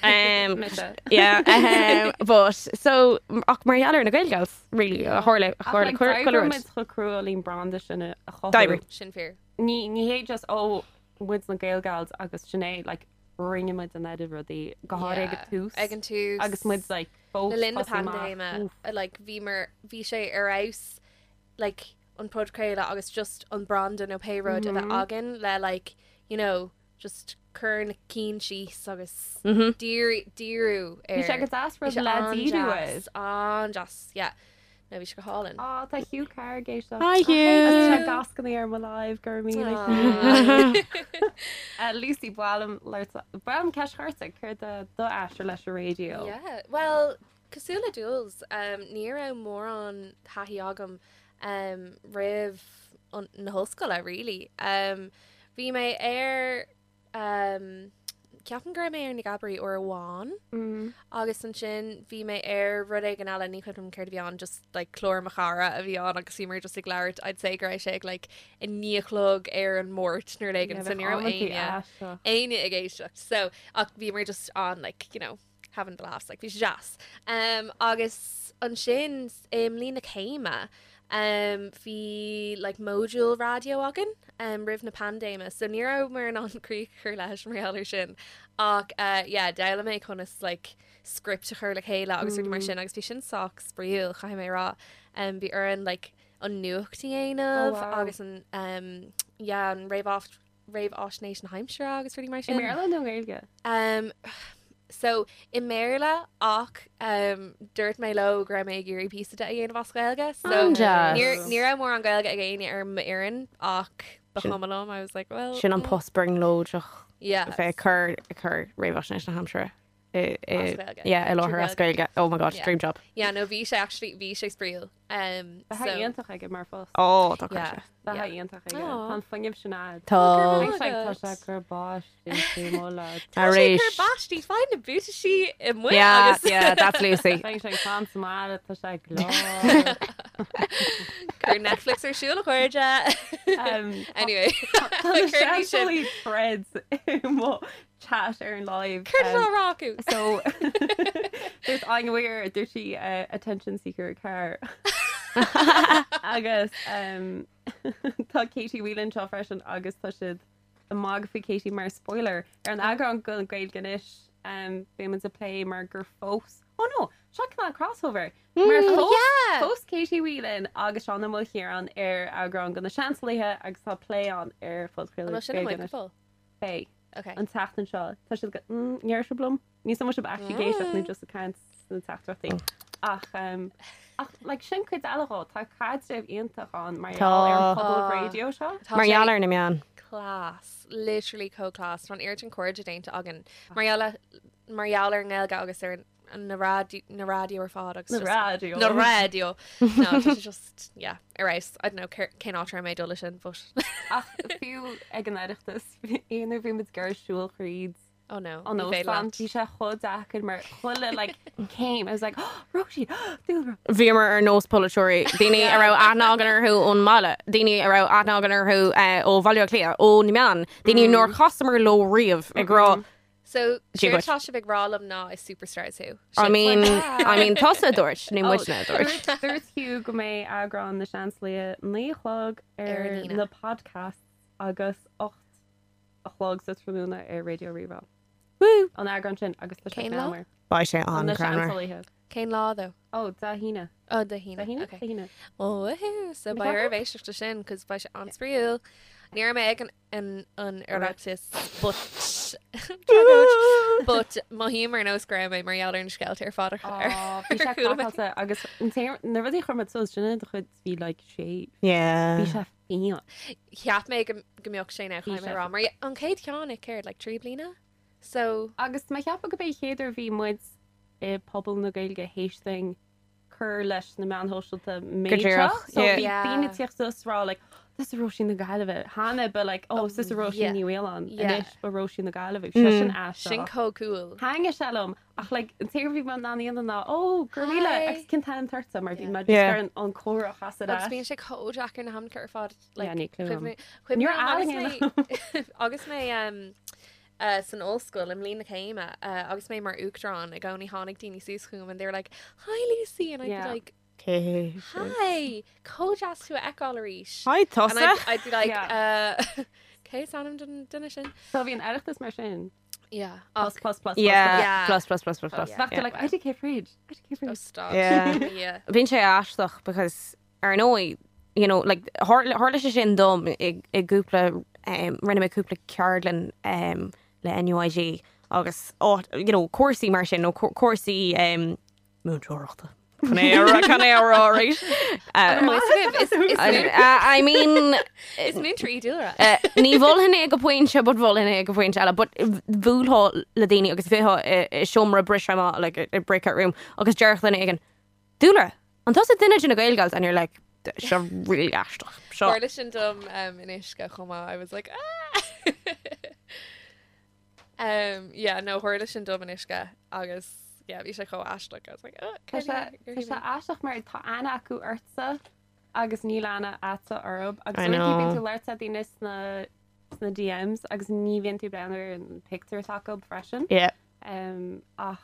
Um, Mise. yeah, um, but so ach mar gheall ar na Gaelgals really a tharla a Ach tharla like, chuile d'oibrigh rud. muid chomh crua leis an branda sin a chothú. D'oibrigh. Sin fíor. Ní ní hé just ó muid na Gaelgals agus sin é like rinne muid an oiread rudaí go háirithe ag an tús Ag an tús. agus muid like fós Le linn na tosaí amach. paindéime, Oof. like, bhí mar bhí sé ar fheabhas like, an podchraoladh agus just an branda nó pé rud a bheith againn le like, you know, just cur na cinn síos agus díriú díriú ar Bhí sé go deas Bhí rud sé le díriú air. an-deas, an-deas, yeah. No, bhí sé go hálainn. Á, tá Hugh Carr ag éisteacht. Hi Agus tá Hugh! gascannaí ar mo live go raibh míle. Aw. Lucy ba mhaith liom labhairt ba mhaith liom ceist a chur ort, céard é do aistear leis an raidió? Yeah, well, cosúil le Jules, um, ní raibh mórán taithí agam um, roimh an, na hollscoile, really. Um, bhí mé ar Um, ceapaim go raibh mé ar na Geabairí uair amháin Mm. agus ansin bhí mé ar rud éigin eile ní cuimhin liom céard a bhí ann just like clár mo chara a bhí ann agus bhíomar just ag labhairt I'd say go raibh sé ag like 9 a chlog ar an Máirt nó rud éigin so ní raibh éinne éinne ag éisteacht so ach bhíomar just on like you know having the laughs like bhí sé deas. Um, agus ansin i mbliain na céime um, bhí like modúl raidió againn um, roimh na paindéime so ní rabhamar in ann críoch a chur leis mar gheall air sin ach uh, yeah, d'fhoghlaim mé conas like script a chur le chéile agus rudaí mar sin agus bhí sin sách spraíúil caithfidh mé a rá. Um, bhí orainn like an nuacht a dhéanamh Oh, wow. agus an um, yeah, an réamh réamhaisnéis na haimsire agus rudaí mar I sin. mBéarla nó Gaeilge? Um, so i mBéarla ach um, dúirt mé leo go raibh mé ag iarraidh píosa de a dhéanamh as Gaeilge. So An-deas. níor ní raibh mórán Gaeilge ag éinne ar m'fhoireann ach ba chuma liom. I was like, well, Sin an post brionglóideach yeah. bheith ag cur ag cur réamhaisnéis na haimsire i i As Gaeilge. yeah, i láthair Trí as Gaeilge. Oh my god, Yeah. dream job. Yeah, no, bhí sé actually bhí sé spraíúil. Um, Bheadh so, iontach aige mar phost. Oh, tá yeah. yeah. Bheadh yeah. iontach aige. Aw. Tá an fuinneamh sin agat. Tá. Go raibh Tá sé agat. ag cur báistí faoi mo lá. Tá sé Arís. cur báistí, faigh na buataisí amuigh Yeah, agus yeah, that's Lucy. Bheadh sé ag fan sa mbaile, tá sé glór. Cuir Netflix ar siúl a chairde. Um, Anyway, Tá cuir sin. seanfholaí threads i mo chat ar an live. Céard atá á rá acu? So dúirt Áine Weir dúirt sí attention seeker car. Agus tá Katie Whelan anseo freisin agus tá siad ag magadh faoi Katie mar spoiler ar an eagrán den Gaeilge Anois beidh muid ag plé mar gur phós Oh no, seo cineál crossover. Mar Oh, yeah! phós Katie Whelan agus Seán Ó Maoilchiaráin ar eagrán de na Seansálaithe agus tá plé ann ar An phodchraoladh bhfuil sin Gaeilge amuigh Anois. go fóill? Beidh. Okay. An tseachtain seo. Tá siad go ndeir sibh liom? Ní san sibh actually ag éisteacht nó just ag caint sna teachtaireachtaí. Ach um, ach like, sin cuid eile dhó, tá caidreamh iontach ann mar gheall ar an Tá. pobal Ah. raidió seo. Tá Mar sé gheall ar na meáin. class, literally chomh class. Tá an oiread sin cairde déanta againn. Mar gheall le- mar gheall ar an nGaeilge agus ar na raidió na raidió ar fad agus Na just- raidió. Na raidió. No, tá sé just yeah, ar fheabhas. I don't know cén áit a raibh mé ag dul leis sin, but Ach fiú ag an Oireachtas aon uair bhí muid ag siúl thríd oh no. an ní féidir óstán leat. bhí sé chomh deacair mar chuile like céim I was like oh, Róisín dúlra. Bhíomar ar nós polaiteoirí, daoine a raibh aithne againn orthu ón mbaile, daoine a raibh aithne againn orthu ó Bhaile Átha Cliath, ó na meáin, daoine nár chasamar leo riamh ag rá So Dia séard duit. tá sibh ag rá liom ná is superstars thú. I Sin. mean, I mean tusa a dúirt, ní muidne a dúirt. Dúirt dúirt Hugh go mbeidh eagrán na Seansálaithe 9 a chlog Ar ar an Aoine. na podcasts agus 8 a chlog sa tráthnóna ar Raidió Rí-Rá. Woo! An eagrán sin agus tá sé Cén lá? greannmhar. Beidh sé An na an-ghreannmhar. Seansálaithe. Cén lá though? Ó, Dé hAoine. Oh, Dé hAoine. Dé hAoine? Okay. Dé hAoine. Oh, woohoo. So Ní beidh ceapaim. oraibh éisteacht leis sin, cos beidh sé an-spraíúil. Ní raibh mé ag an an an Oireachtas but tragóid but mothaím ar nós go raibh mé mar gheall ar na scéalta ar fad a Ó, bhí sé chuala mé. craiceáilte agus an t-aon na rudaí a chuir muid suas sin de chuid bhí like sé Yeah. bhí sé fiáin. Cheap mé go go mbeadh sé ná Bhí chaithfidh mé sé rá mar an chéad cheann é céard like 3 bliana? So Agus mé ag ceapadh go b'é chéad uair bhí muid i pobal na Gaeilge théis dúinn cur leis na meáin shóisialta méid seo. díreach, So yeah. bhí Yeah. daoine ag tíocht suas rá like tusa Róisín na Gaillimhe. Cheana ba like oh tusa Róisín yeah. Ní Mhaoláin. Yeah. Anois ba Róisín na Gaillimhe. Bhí sé sin aisteach. sin chomh cool. Thaitnigh sé liom ach like an t-aon rud bhí mé in ann a dhéanamh ná oh go raibh míle Hi. agus cén t-ainm atá ortsa mar bhí Yeah. mé just Yeah. ar an an comhrá a chasadh Agus leis. bíonn sé chomh deacair na hamca ar fad like, Yeah, ní clue cuimhne- Níor cuimhne liom agus ealaín mé- agus mé um, san ollscoil i mbliain na céime agus mé mar uachtarán i gcónaí tháinig daoine suas chugam and they were like hi Lucy and I'd Yeah. be like Okay. hi chomh deas tú a fheiceáil arís. Hi And tusa. I'd be like Yeah. cé is ainm don duine sin? So bhí an Oireachtas mar sin. Yeah. Plus plus plus plus. Yeah. Yeah. Plus plus plus plus plus. Yeah. Bheadh tú like IDK fridge. IDK Oh, fridge. stop. Yeah. Yeah. Bíonn sé aisteach because ar ndóigh, you know, like tharla tharla sé sin dom i i gcúpla um, rinne mé cúpla ceardlann um, le NUIG agus ó, you know, cúrsaí mar sin nó cúrsaí um, múinteoireachta. Can é rá can é rá right? Is is I mean is múinteoir í Dúlra. Ní mholfainn é go pointe, but mholfainn é go pointe eile, but bhuailfeá le daoine agus bheifeá i seomra briseadh amach, like a breakout room, agus déarfadh duine éigin, Dúlra, an tusa duine de na Gaelgals? And you're like, seo really aisteach. Seo. Tharla sin dom um, in uisce chomh maith. I was like, ah! um, yeah, no, tharla sin dom in uisce agus yeah, bhí sé chomh aisteach. I was like, oh, Tá sé tá sé aisteach mar tá aithne acu ortsa agus níl aithne agatsa orthu agus I uaireanta know. bíonn tú ag labhairt le daoine sna sna DMs agus ní bhíonn tú ag breathnú ar an pictiúr atá acu freisin. Yeah. Um, ach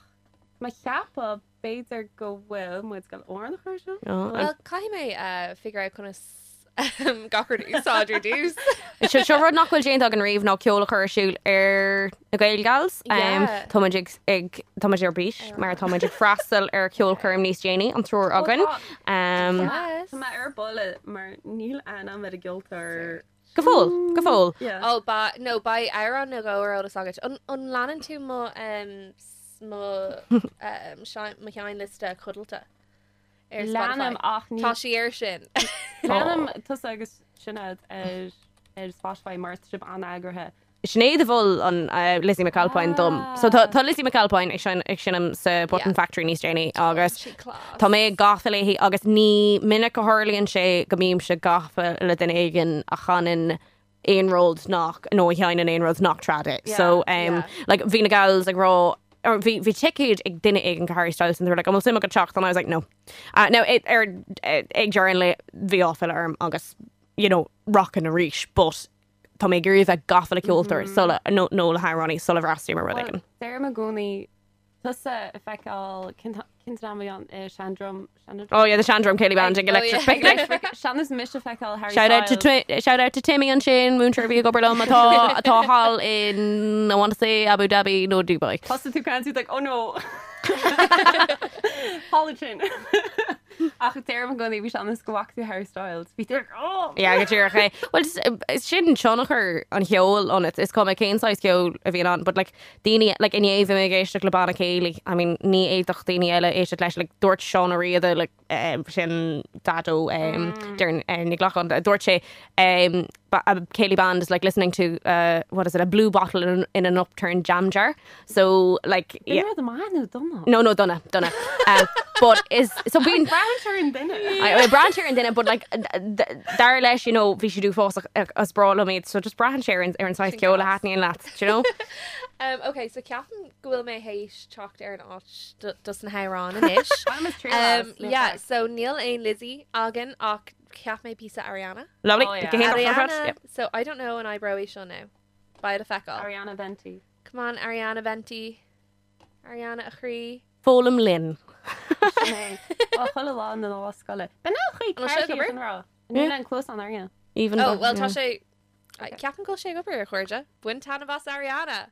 má cheapadh b'fhéidir go bhfuil muid ag gabháil amhrán a chur seo. Oh, Well, caithfidh mé uh, figure out conas um, gach rud a úsáid ar dtús. Seo seo rud nach bhfuil déanta againn riamh ná ceol a chur ar siúl ar na Gaelgals. Um, Yeah. tá muid ag, ag, tá muid ar bís mar tá muid ag freastal ar ceolchoirm níos déanaí an triúr againn. Um, Yes. Tá mé ar buile mar níl aithne agam ar an gceoltóir. go fóill, go fóill. Yeah. Oh, ba, no, beidh amhrán nó dhó ar eolas agat. An, an leanann tú mo, um, mo, um, mo sheinnliosta codlata ar Spotify? Leanaim ach ní Tá sí air sin. Leanaim tusa agus Sinéad ar ar Spotify mar tá sibh an-eagraithe. Sinéad a mhol an uh, Lizzie McAlpine dom. So tá, tá Lizzie McAlpine ag sein- ag seinm sa Button Yeah. Factory níos déanaí agus Sí class. Tá mé gafa léi agus ní minic a tharlaíonn sé go mbímse gafa le duine éigin a chanann aon rud nach nó a sheinneann aon rud nach trad é. So um, yeah. like, bhí na gals ag rá or bhí bhí ticéid ag duine éigin go Harry Styles and they were like, an bhfuil suim agat teacht and I was like, no. Now it, ar ag deireadh an lae bhí áiféala orm agus you know, rockin arís, but tá mé ag iarraidh a bheith gafa le ceoltóir sula, nó, nó le hamhránaí sula bhfreastalaím ar rud éigin. Deirim i gcónaí tusa a feiceáil cén t-am a bhí ann i Shandrum, Shandrum? Oh yeah, the Shandrum Céilí Band ag Oh, Electric yeah. Picnic. Electric Sean-nós mise a feiceáil Harry Shout out to Styles. Twi- shout out to Timmy ansin, múinteoir a bhí ag obair liom atá atá thall in I want to say Abu Dhabi nó Dubai. Thosaigh tú caint like oh no. Halogen. Ach deirim i gcónaí bhí sean-nós go bhfaca tú Harry Styles. Bhí tú like oh. Yeah, go díreach é. Well, just, eh, sin tionchar an cheoil ionat. Is cuma cén saghas ceoil a bhíonn ann, but like daoine, like inné bhí mé ag éisteacht le banna céilí. I mean, ní fhéadfadh daoine eile éisteacht leis, like dúirt Seán Ó Riada, like, eh, sin Daideo, um, Doireann, eh, Ní Ghlacáin, dúirt sé, um, ba- a céilí band is like listening to, uh, what is it, a blue bottle in, an- in an upturned jam jar. So, like, yeah. Bhí rud maith nó dona? No, no, dona, dona. Um, but is, so bíonn, Braitheann sé ar an duine. I braitheann sé ar an duine, but like, dar leis, you know, bhí siad uafásach is breá liom iad, so just braitheann sé ar an ar an saghas ceoil a thaitníonn leat, do you know? Um, ok, so ceapaim go bhfuil mé théis teacht ar an áit do, dos na hamhráin anois. Bainim as triail Um, as, níl yeah, faic. so níl aon Lizzie againn ach cheap mé píosa Ariana. Lovely. Oh, yeah. Go hiontach ar fad, Ariana, yep. so I don't know an oibreoidh seo now. Beidh le feiceáil. Ariana Venti. Come on, Ariana Venti. Ariana a chroí. Foghlaim linn. Sin é. Well, chuile lá na lá scoile. B'in é an chaoi An bhfuil sé ag ceart obair? sin rá. Níl an cluas an Ariana. Even Oh, though- well, tá yeah. sé... Ceapaim go bhfuil sé ag obair a chairde. Bain taitneamh as Ariana.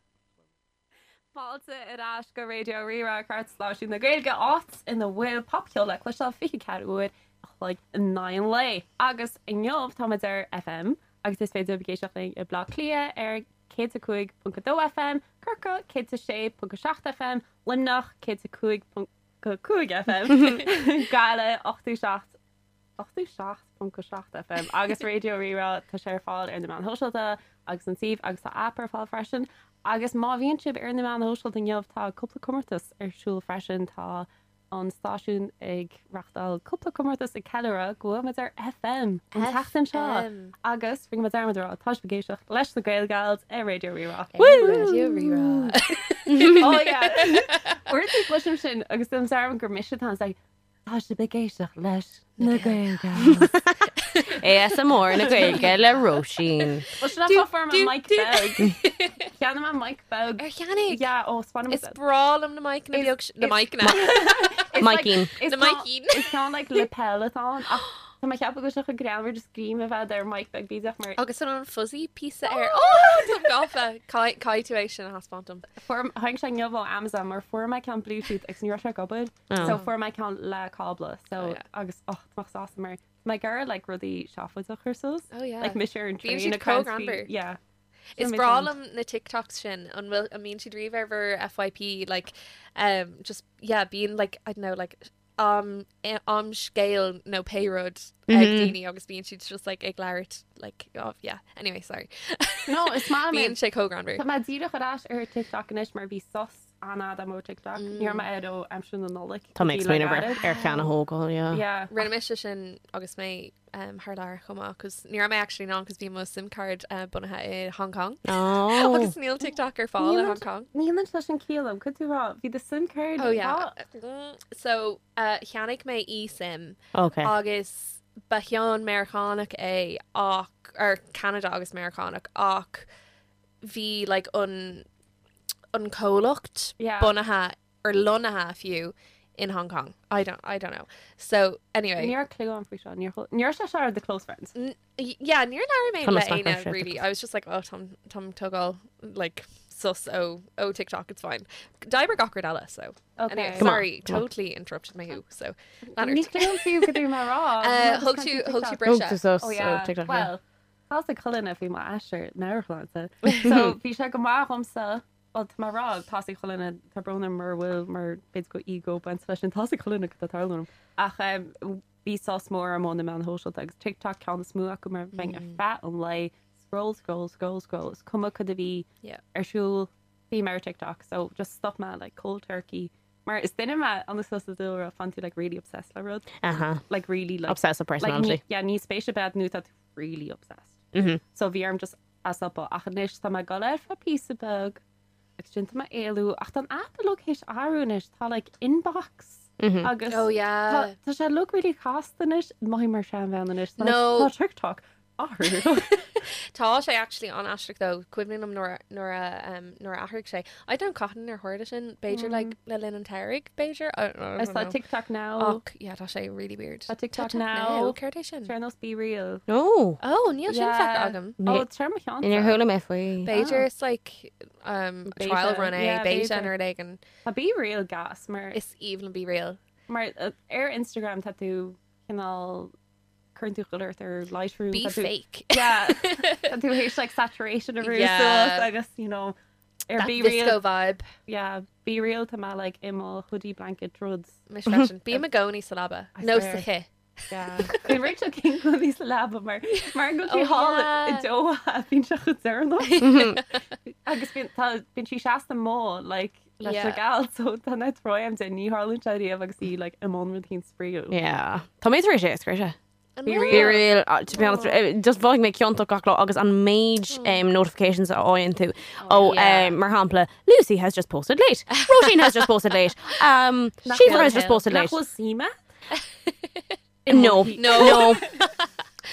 Fáilte ar ais go Raidió Rí-Rá Stáisiún na Gaeilge áit ina bhfuil popcheol le cloisteáil 24 uair a chloig in aghaidh an lae. Agus inniu táimid ar FM agus is féidir libh éisteacht linn i Bleá Cliath ar 105.2 FM, Corcaigh 106.7 FM, Luimneach 105.5 FM, Gaillimh 87 87.7 FM agus Raidió Rí-Rá tá sé ar fáil ar na meáin shóisialta agus an suíomh agus tá aip ar fáil freisin. Agus má bhíonn sibh ar na meáin shóisialta inniu tá cúpla comórtas ar siúl freisin tá an stáisiún ag reáchtáil cúpla comórtas ag ceiliúradh go bhfuil muid ar FM an tseachtain seo FM. agus rinne muid dearmad a rá tá sibh ag éisteacht leis na Gaelgals ar Raidió Rí-Rá. Raidió Rí-Rá. Oh yeah. Uaireanta cloisim sin agus déanaim dearmad gur mise atá ann, it's like, Tá sibh ag éisteacht leis na Gaelgals. ASMR na Gaeilge le Róisín. Well, sin an fáth fuair mé mic beag. Cheannaigh mé mic beag. Ar cheannaigh? Yeah, ó spáin Is breá liom na mic-anna Is- beag na is- mic-anna. Micín. Na micín. Is ceann like lapel atá ann ach tá mé ag ceapadh go bhfuil sé chomh greannmhar just greim a bheith ar mic beag bídeach mar Agus an an fuzzy píosa air. Oh, Tá gafa. Caithfidh tú é sin a thaispeáint dom. Fuair tháinig sé inniu ó Amazon mar fuair mé ceann Bluetooth agus ní raibh sé ag obair. So fuair mé ceann le cábla. So Oh, yeah. agus och tá mé sásta mar tá mé ag iarraidh like rudaí seafóideach a chur suas. Oh yeah. Like mise ar an Bíonn train siad ag caint faoi- comhghreannmhar. Yeah. Is Sin breá mé liom na TikToks sin an bhfuil an mbíonn siad riamh ar bhur FYP like um, just yeah bíonn like I don't know like um am scéal nó pé rud ag daoine agus bíonn siad just like ag labhairt like oh yeah anyway sorry No, is maith liom bíonn sé chomh greannmhar. Tá mé díreach ar ais ar TikTok anois mar bhí sos an-fhada agam ó TikTok. Ní raibh mé air ó aimsir na Nollag. Tá mé ag Bhí le smaoineamh ar gairid. ar cheann a thógáil, yeah. Yeah. Rinne mise sin agus mé um, thar lear chomh maith cos ní raibh mé actually in ann cos bhí mo SIM card uh, bunaithe i Hong Kong. Oh. Agus níl TikTok ar fáil i Hong Kong. Níl an leis an ciall am, could tú rá, bhí do SIM card Oh yeah. Mm, So uh, cheannaigh mé eSIM Okay. agus ba cheann Meiriceánach é ach ar Canada agus Meiriceánach ach bhí like an an comhlacht Yeah. bunaithe or lonnaithe fiú in Hong Kong. I don't I don't know. So anyway, Níor clue an faoi seo, níor níor sé seo ar the close friends. Yeah, níor labhair mé Tá le mé éinne smack really. I was just like, oh, Tom Tom tógáil like sus ó ó TikTok, it's fine. D'oibrigh gach rud eile, so. Okay. Anyway, Come on, sorry, come on. totally interrupted my who. So, Ní Leonard. clue an fiú go dtí mé rá. Uh, thug tú thug tú Thug briseadh. tú sos Oh yeah. ó TikTok, yeah. Well, tá cholna faoi m'aistear meabhairshláinte. So bhí sé go maith dhomsa well tá mé ag rá tá a fhios ag chuile dhuine tá brón orm mura bhfuil mar b'fhéidir go ego baint leis sin tá a fhios ag chuile dhuine cad tá ag tarlú liom. Ach um, bhí sos mór orm ó na meáin shóisialta agus TikTok ceann is mó acu mar bheinn ar feadh an lae scroll scroll scroll scroll is cuma cad a bhí Yeah. ar siúl bhí mé ar TikTok so just stop mé like cold turkey mar is duine mé an is sa dúlra fan tú like really obsessed le rud Uh-huh. like really like Obsessive like, personality. ní, yeah, ní spéis a bheith nó tá tú really obsessed. Mhm. So bhí orm just as up ach anois tá mé ag dul ar feadh píosa beag agus sin tá mé ag éalú ach tá an app uilig théis athrú anois tá like inbox Mhm. agus Oh yeah. tá tá sé look really casta anois mothaím mar seanbhean anois Tá, No. like, tá TikTok. athrú. Tá sé actually an-aisteach though, cuimhin liom nuair nuair a um, nuair a athraigh sé. I don't cathain ar tharla sin, b'fhéidir like le linn an tsamhraidh, b'fhéidir? I don't know. Is tá TikTok now. Ach yeah, tá sé really weird. Tá TikTok now. Céard é sin? Ar nós BeReal. No. Oh, níl sin feicthe agam. Oh, tar mo cheann. Níor chuala mé faoi. B'fhéidir it's like um, Beta. trial run é, Yeah, beta beta. nó rud éigin. Tá BeReal gas mar Is aoibhinn liom BeReal. mar uh, ar Instagram tá tú cineál cuireann tú chuile ort ar Lightroom. Be tá tú- fake. Yeah. Tá tú théis like saturation a bhrú Yeah. suas agus you know ar That Be disco Real vibe. yeah, BeReal tá mé like i mo hoodie blanket ruds. Mise freisin. Bím i gcónaí sa leaba. I Nó swear. sa chith. Yeah. Bhí Rachel King i sa leaba mar mar go Oh, sí thall yeah. i Doha bíonn sé chomh deireanach. Agus bíonn tá bíonn sí seasta mo like leis na Yeah. gals so tá na troim de ní tharlaíonn sé riamh agus í like i mbun rud éigin spraíúil. Yeah. Tá mé tar éis é a scriosadh. An Be bhfuil? Be real, uh, to be honest, eh, just mhothaigh mé ciontach gach lá agus an méid um, notifications a fhaigheann tú. Oh, yeah. um, mar shampla, Lucy has just posted late. Roisin has just posted late. Um, Síofra has just posted Nach late. bhfuil suime? No. No. No.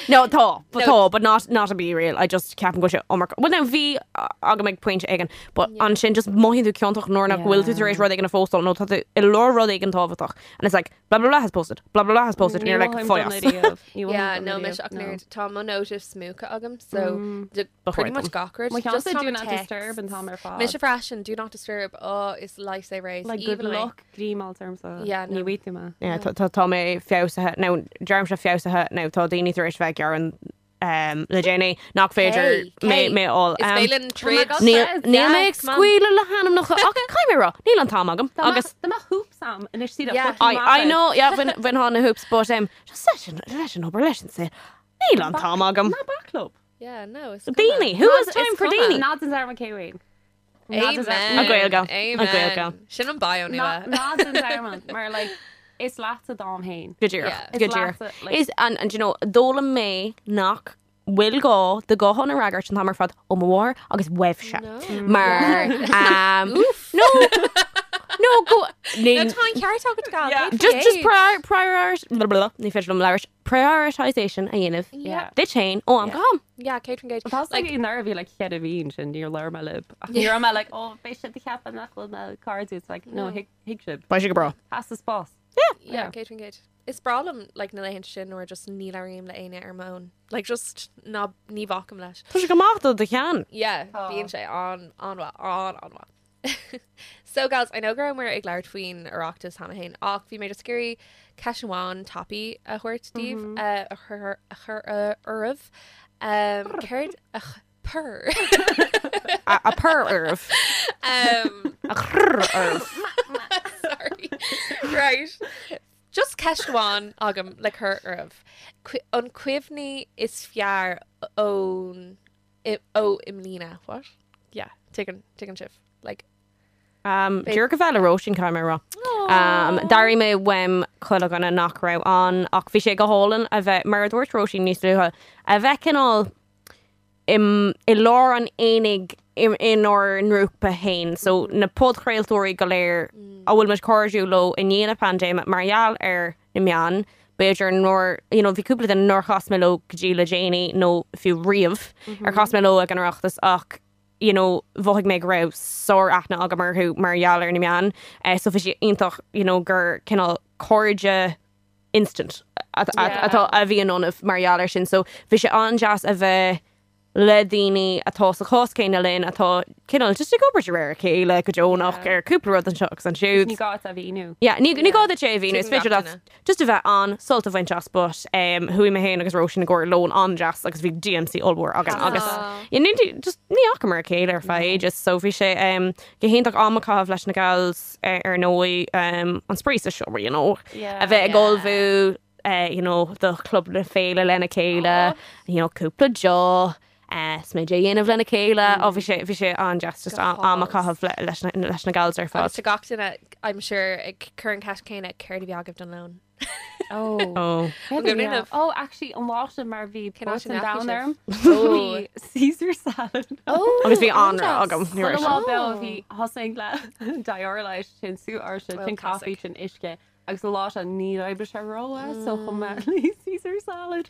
No, tá, but No. tá, but not not a BeReal. I just ceapaim go bhfuil sé iomarca. Well, now bhí uh, agam ag pointe éigin, but ansin just mothaíonn tú ciontach nuair nach bhfuil tú tar éis rud éigin a phóstáil nó tá tú i lár rud éigin tábhachtach. And it's like, blah, blah, blah has posted, blah, blah, blah has posted, and you're like, fáigh as. Yeah, no, mise ach nuair tá mo notifs múchta agam, so de- Ba pretty chóir much dom. gach rud. Mo Just cheannsa tá do mo not texts. disturb an t-am ar fad. Mise freisin, do not disturb. Oh, is lifesaver é. Like good Even mé. luck grímáil terms Yeah, no. Ní bhí tú me. Yeah, tá- tá tá mé feabhsaithe nó deirimse feabhsaithe nó tá daoine tar éis bheith gearán um, le déanaí nach féidir Hey, mé hey, mé all. Is Um, féidir troid. God. Níl Says, níl mé yeah, ag come on. scaoileadh le hainmneacha ach caithfidh mé rá, níl an t-am agam agus Tá hoops agam anois sí Yeah. I, I know yeah, bhain bhain na hoops but um, just leis an leis an obair leis an saol. Níl an t-am agam. Ná bac leo. Yeah, no, it's cuma. Daoine, who has time It's for cuma. daoine? Ná den Zara McKay Amen. A Gaeilge. A Amen. Gaeilge. Sin an bio nua. Ná den Zara mar like is leatsa d'am féin. Go díreach, Yeah. go Is díreach. leatsa, like- Is and and you know d'fhoghlaim mé nach bhfuil gá do ghuthán a fhreagairt an t-am ar fad ó mo mháthair agus uaibhse. No. Mar um, no no go No, tá an ceart agat gal. Yeah. just just prior prior blah, blah, blah, ní féidir liom labhairt prioritization a dhéanamh Yeah. duit féin ó am go ham. Yeah, Kate Engage. Tá Like, like nar bhí like chead a bhíon sin níor leir me lib. Ní raibh mé like oh beidh siad ag ceapadh nach bhfuil na cairde it's like no thuig thuig sibh. Beidh sé go breá. Has the spás. yeah, Yeah. Kate Engage. Is breá liom like na laethanta sin nuair just ní labhraím le éinne ar m'own. Like just ná ní bhacaim leis. Tá sé go maith do do cheann. Yeah, Tá. bíonn sé an an-mhaith, an an-mhaith. So gals, I know go rabhamar ag labhairt faoin Oireachtas cheana féin ach bhí mé just ag iarraidh ceist amháin tapaidh a thabhairt daoibh eh, a chur a chur eh, oraibh. Um, céard a ch- purr. A a purr oraibh. Um, A chrrr oraibh. sorry. Right. Just ceist amháin agam le cur oraibh. Cu- An cuimhní is fearr ón i- ó i mbliana. What? Yeah, tuigeann tuigeann sibh. Like Um, Díreach a bheith le Róisín caithfidh mé a rá. Um, D'airigh mé uaim chuile dhuine nach raibh ann ach bhí sé go hálainn a bheith mar a dúirt Róisín níos luaithe a bheith cineál im, i lár an aonaigh im, inár ngrúpa féin. So na podchraoltóirí go léir a bhfuil muid cairdiúil leo i ndiaidh na paindéime mar gheall ar na meáin, b'fhéidir nár, you know, bhí cúpla duine nár chas mé leo go dtí le déanaí nó fiú riamh ar chas mé leo ag an Oireachtas ach you know, mhothaigh mé go raibh sár-aithne agam orthu mar gheall ar na meáin. Eh, so bhí sé iontach, you know, gur cineál cairde instant atá a bhí ionaibh mar gheall air sin. So bhí sé an-deas a bheith le daoine atá sa chás céanna linn atá cineál just ag obair de réir a chéile go deonach ar cúpla rud anseo agus ansiúd. Ní gá a mhíniú. Yeah, ní ní gá duit é a mhíniú, is Tuigeann féidir gach leat duine. just a bheith ann sult a bhaint as, but um, chuaigh mé féin agus Róisín i gcomhair lón an-deas agus bhí DMC ollmhór againn agus yeah, ní just ní fhacamar a chéile ar feadh ages, so bhí sé um, go hiontach am a chaitheamh leis na gals eh, ar ndóigh um, an spraoi sa seomra, you know, Yeah. a bheith ag Yeah. ullmhú eh, you know, do chlub na féile lena chéile, you know, cúpla deoch, eh, smideadh a dhéanamh lena chéile, ó bhí sé bhí sé an-deas just Go am a hálainn. chaitheamh le- leis na leis na gals ar fad. Agus tá gach duine, I'm sure, ag cur an ceist céanna céard a bhí agaibh don lón. Oh. Oh. Céard An a bhí gcuimhin ann? Oh, actually, an lá sin mar bhí Cén áit both an a ndeachaigh domhan sibh? orm. Oh. Bhí Caesar salad. Oh, Agus bhí anraith an-deas. agam, ní raibh Chuile lá sé. beo bhí thosaigh le Dioralyte sin sú áirse, Well, sin caife, classic. sin uisce. Agus an lá seo ní oibrigh sé rómhaith so chum mé Caesar salad.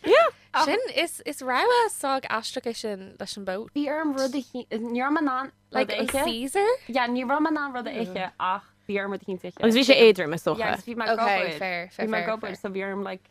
Sin is is rogha sách aisteach é sin leis an boat. Bhí orm rud a ní raibh mé in ann Like rud a an ithe. Caesar? Yeah, ní raibh mé in ann rud a ithe ach bhí orm rud eicínt a ithe. Agus bhí sé éadrom is Yeah, dócha. agus bhí mé ag Okay, obair. fair, fair, Bhí mé ag fair, obair fair. so bhí orm like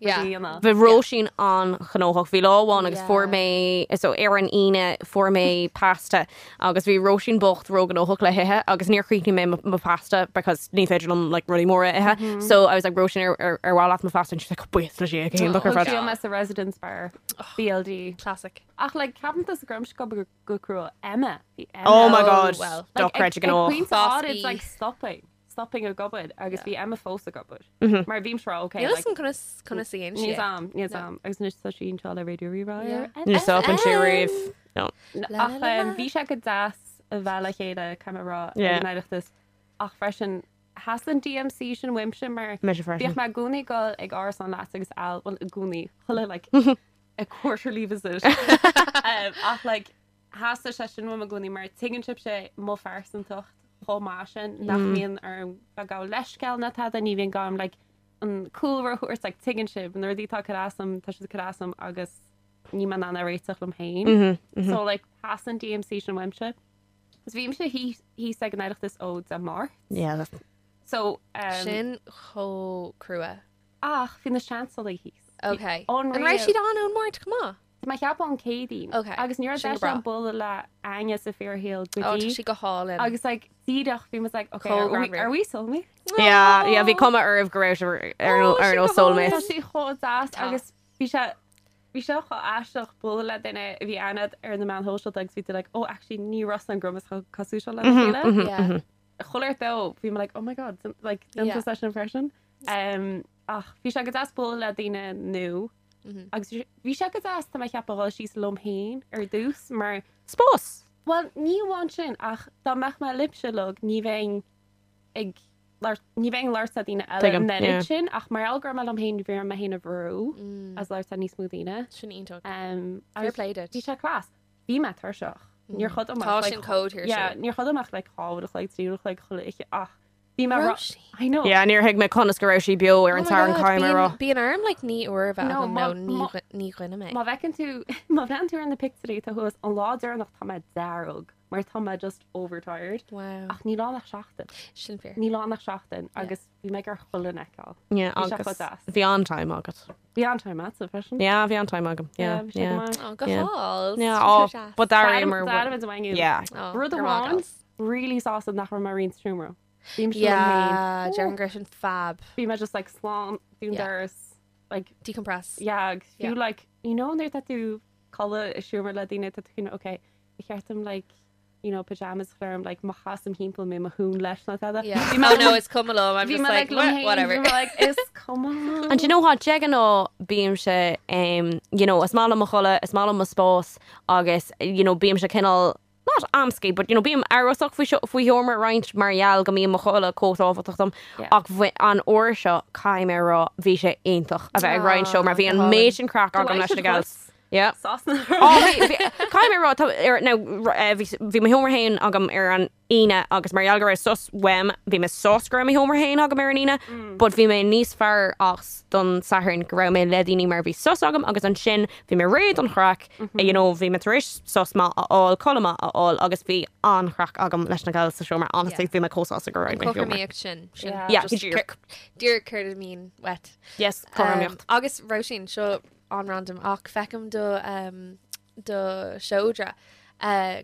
Yeah. rud a dhéanamh. Bhí Róisín an-ghnóthach. Bhí lá amháin agus Yeah. fuair mé so ar an Aoine fuair mé pasta agus bhí Róisín bocht róghnóthach le hithe agus níor chríochnaigh mé mo- mo pasta because ní féidir liom like rudaí móra a ithe. So I was like Róisín ar ar ar mhaith leat mo phasta and she's like buíochas le Dia go hiontach ar Thug fad. sí mé sa Residence Bar BLD. Classic. Ach like ceapann tusa go raibh mise ag obair go crua Emma. Bhí Emma. Oh my Oh, god. well. Like, Dochreidte ag gnóthach. pointe Boss áirid, B. like stopping. Stopping ag obair agus bhí Emma fós ag obair. Mar bhí mise okay. Níl like, an conas conas a dhéan Níl sí. am, níl am. Agus anois tá sí anseo le Radio Rí-Rá. Yeah. Níor stop an sé riamh. No. La, Ach la, la, la. bhí sé go deas a bheith le chéile caithfidh mé a rá Yeah. ag an Oireachtas. Ach freisin theastaigh an DMC sin uaimse mar Mise freisin. bhíodh mé i gcónaí ag dul ag árasán leat agus Al well i gcónaí chuile like a quarterly visit. Ach like theastaigh sé sin uaim i gcónaí mar tuigeann sibhse mo phearsantacht chomh maith sin nach mbíonn orm bheith ag gabháil leithscéal ná tada ní bhíonn gá dom like an cúlra a thabhairt like tuigeann sibh na rudaí atá ag cur as dom tá siad ag cur as dom agus níl mé in ann a réiteach liom féin. So like theastaigh an DMC sin uaimse. Agus bhímse thíos thíos ag an Oireachtas ó Dé Máirt. Yeah, that's So um, Sin chomh crua. ach bhí na seansálaithe thíos. Okay. Unreal. An raibh siad ann ón Máirt chomh maith? Tá mé ag ceapadh ón Céadaoin. Okay, Agus ní raibh sin go deis breá. agam bualadh le éinne sa fíorshaol go Ó, tá dtí. sí go hálainn. Agus like díreach bhí muid like okay, Chomh are we, greannmhar. are we soulmates? Yeah, yeah, bhí cuma oraibh go raibh sibh ar Ó, ar sin nó go hálainn. Tá soulmates. sí chomh deas Tá. agus bhí sé bhí sé chomh aisteach bualadh le duine a bhí aithne agat ar na meáin shóisialta agus bhí tú like oh actually ní raibh an grumas chomh cosúil seo lena chéile. Yeah. Chuile shórt dó bhí mé like oh my god like Yeah. déanta seisean freisin. Um, ach bhí sé go deas bualadh le daoine nua agus bhí sé- bhí sé go deas tá mé ag ceapadh dhul síos liom féin ar dtús mar Spás. Well, ní amháin sin ach dá mbeadh mé libhse uilig ní bheinn ag labhairt ní bheinn ag labhairt le daoine eile Tuigim, an oiread yeah. sin ach mar gheall go raibh mé liom féin bhí orm mé féin a bhrú as labhairt le níos mó daoine. Sin iontach. Um, Fair agus play duit. Bhí sé class. Bhí mé tuirseach. Níor chodail mé Tá ach, like, sin chomh tuirseach. Yeah, níor chodail mé ach like dhá uair a chloig, trí uair a chloig chuile oíche ach bhí mé ra- Róisín. I know. Yeah, níor thuig mé conas go raibh sí beo ar Oh an my Satharn God, caithfidh mé a rá. Bíonn bíonn orm like naoi uair a bheith No, agam má- nó ní má- ghu- ní dhuine mé. Má bhfeiceann tú má bhreathnaíonn tú ar na pictiúirí atá thuas an lá deireanach tá mé dearg mar tá mé just overtired. Wow. Ach níl ann ach seachtain. Sin fíor. Níl ann ach seachtain agus bhí mé ar chuile fheiceáil. Yeah, Bhí sé agus chomh deas. bhí an-time agat. Bhí an-time agatsa freisin. Yeah, bhí an-time agam. Yeah, bhí sé go yeah. maith. Oh, go Yeah. hálainn. Yeah, Sin oh, chomh deas. but d'airím D'airím a bhain Yeah. Oh, Rud go maith, amháin gals. really sásta nach raibh mé ag roinnt seomra. Bhí mé Yeah, déarfainn go raibh sin fab. Bhí mé just like slán dún Yeah. doras like Decompress. yeah, agus fiú Yeah. like you know nuair atá tú ag codladh i seomra le daoine tá tú cineál, okay, ba cheart dom like you know pajamas a chur orm like má chasaim timpeall mé mo thún leis nó tada. Yeah. Bhí mé Oh no, is cuma liom. I'm bhí just mé like, like liom "Wha- féin, whatever. bhí mé like is cuma. And do you know what, de ghnáth bímse um, you know, is maith liom mo chodladh, is maith liom mo spás agus you know, bímse cineál not amscaí, but you know, bím amhrasach faoi seo- faoi sheomra a roinnt mar gheall go mbíonn mo chodladh chomh tábhachtach dom. Yeah. Ach bhí an uair seo caithfidh mé a rá bhí sé iontach a bheith ag roinnt seomra. Bhí an go méid sin craic agam leis na gals. Yeah. Sásna. Ó, bhí- bhí- Caithfidh mé a rá, tá- ar- now, r- eh, bhí bhí mo sheomra féin agam ar an Aoine agus mar gheall go raibh sos uaim, bhí mé sásta go raibh mo sheomra féin agam ar an Aoine, but bhí mé níos fearr as don Satharn go raibh mé le daoine mar bhí sos agam agus ansin bhí mé réidh don chraic, you know, bhí mé tar éis sos maith a fháil, codladh maith a fháil agus bhí an-chraic agam leis na gals sa seomra. Honestly, Yeah. bhí mé chomh sásta go raibh mé i seomra. Cothromaíocht sin. Sin Yeah. Yeah, just díreach. Díreach céard a bhíonn uait. Yes, cothromaíocht. Um, agus Róisín seo an-random ach feicim do um, do seodra. Uh,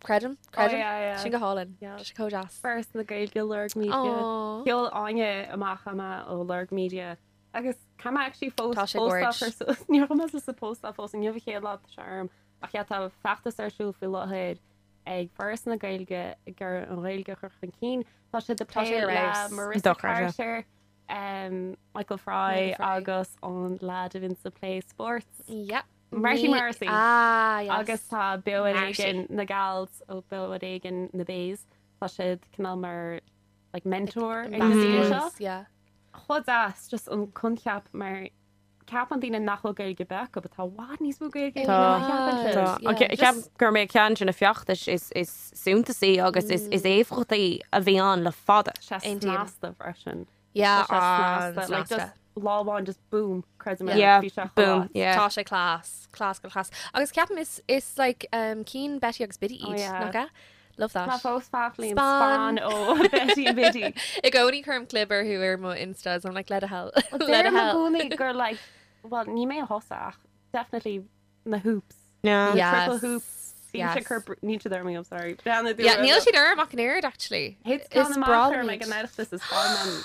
creidim, creidim. Oh, yeah, yeah. Sin go hálainn. Yeah. Tá sé chomh deas. Foras na Gaeilge Lorg Media. Aw. Sheol Áine amach ama ó Lorg Media. Agus tá mé actually fós Tá sé póstáil gorge. ar suas- Níor chuir mé suas sa póstáil fós inniu an chéad lá tá sé orm. Ach yeah, tá feachtas ar siúl faoi láthair ag Foras na Gaeilge ag iarraidh an Ghaeilge a chur chun cinn. Tá sé de Tá sé plé ar le fheabhas. Marissa Dochreidte. Carter, um, Michael Fry Michael Fry. agus an lad a bhíonn sa Play Sports. Yep. Marty Ní- Morrissey. Ah, yes. Agus tá Beo ar Marcy. Éigean na Gals ó Beo ar Éigean na Bays. Tá siad cineál mar like, mentor ag na daoine seo. Ambassadors, yeah. Chomh deas just an coincheap mar ceapann daoine nach bhfuil Gaeilge beo acu, but tá i bhfad níos mó Gaeilge Tá. ná a cheapann siad. Tá. Yeah, An ce- just- Ceap gur mé ceann de na feachtais is is suntasaí agus is is éifeachtaí a bhí ann le fada. Sé Aontaím. snasta freisin. Yeah, Tá sé snasta, like an-snasta. just lá amháin just boom, creidim é, Yeah, bhí sé chomh boom, ait. yeah. Tá sé class, class go class. Agus ceapaim is, is like um, cinn Betty agus Biddy Oh, iad, yeah. nach ea? Love that. Tá fós fáclaíonn Spán. spán ó Betty and Biddy. I gcónaí cuirim clib orthu ar mo Instas, I'm like let a hell. Let a Deirim i hell. gcónaí gur like, well, ní mé a thosaigh ach definitely na hoops. Yeah. Yes. Triple hoops. Bhí Yes. sé cur níl siad orm, I'm sorry. Breathnaigh Yeah, níl siad orm ach an oiread actually. Hit Is amach breá orm liom ag an iad. Oireachtas is fáil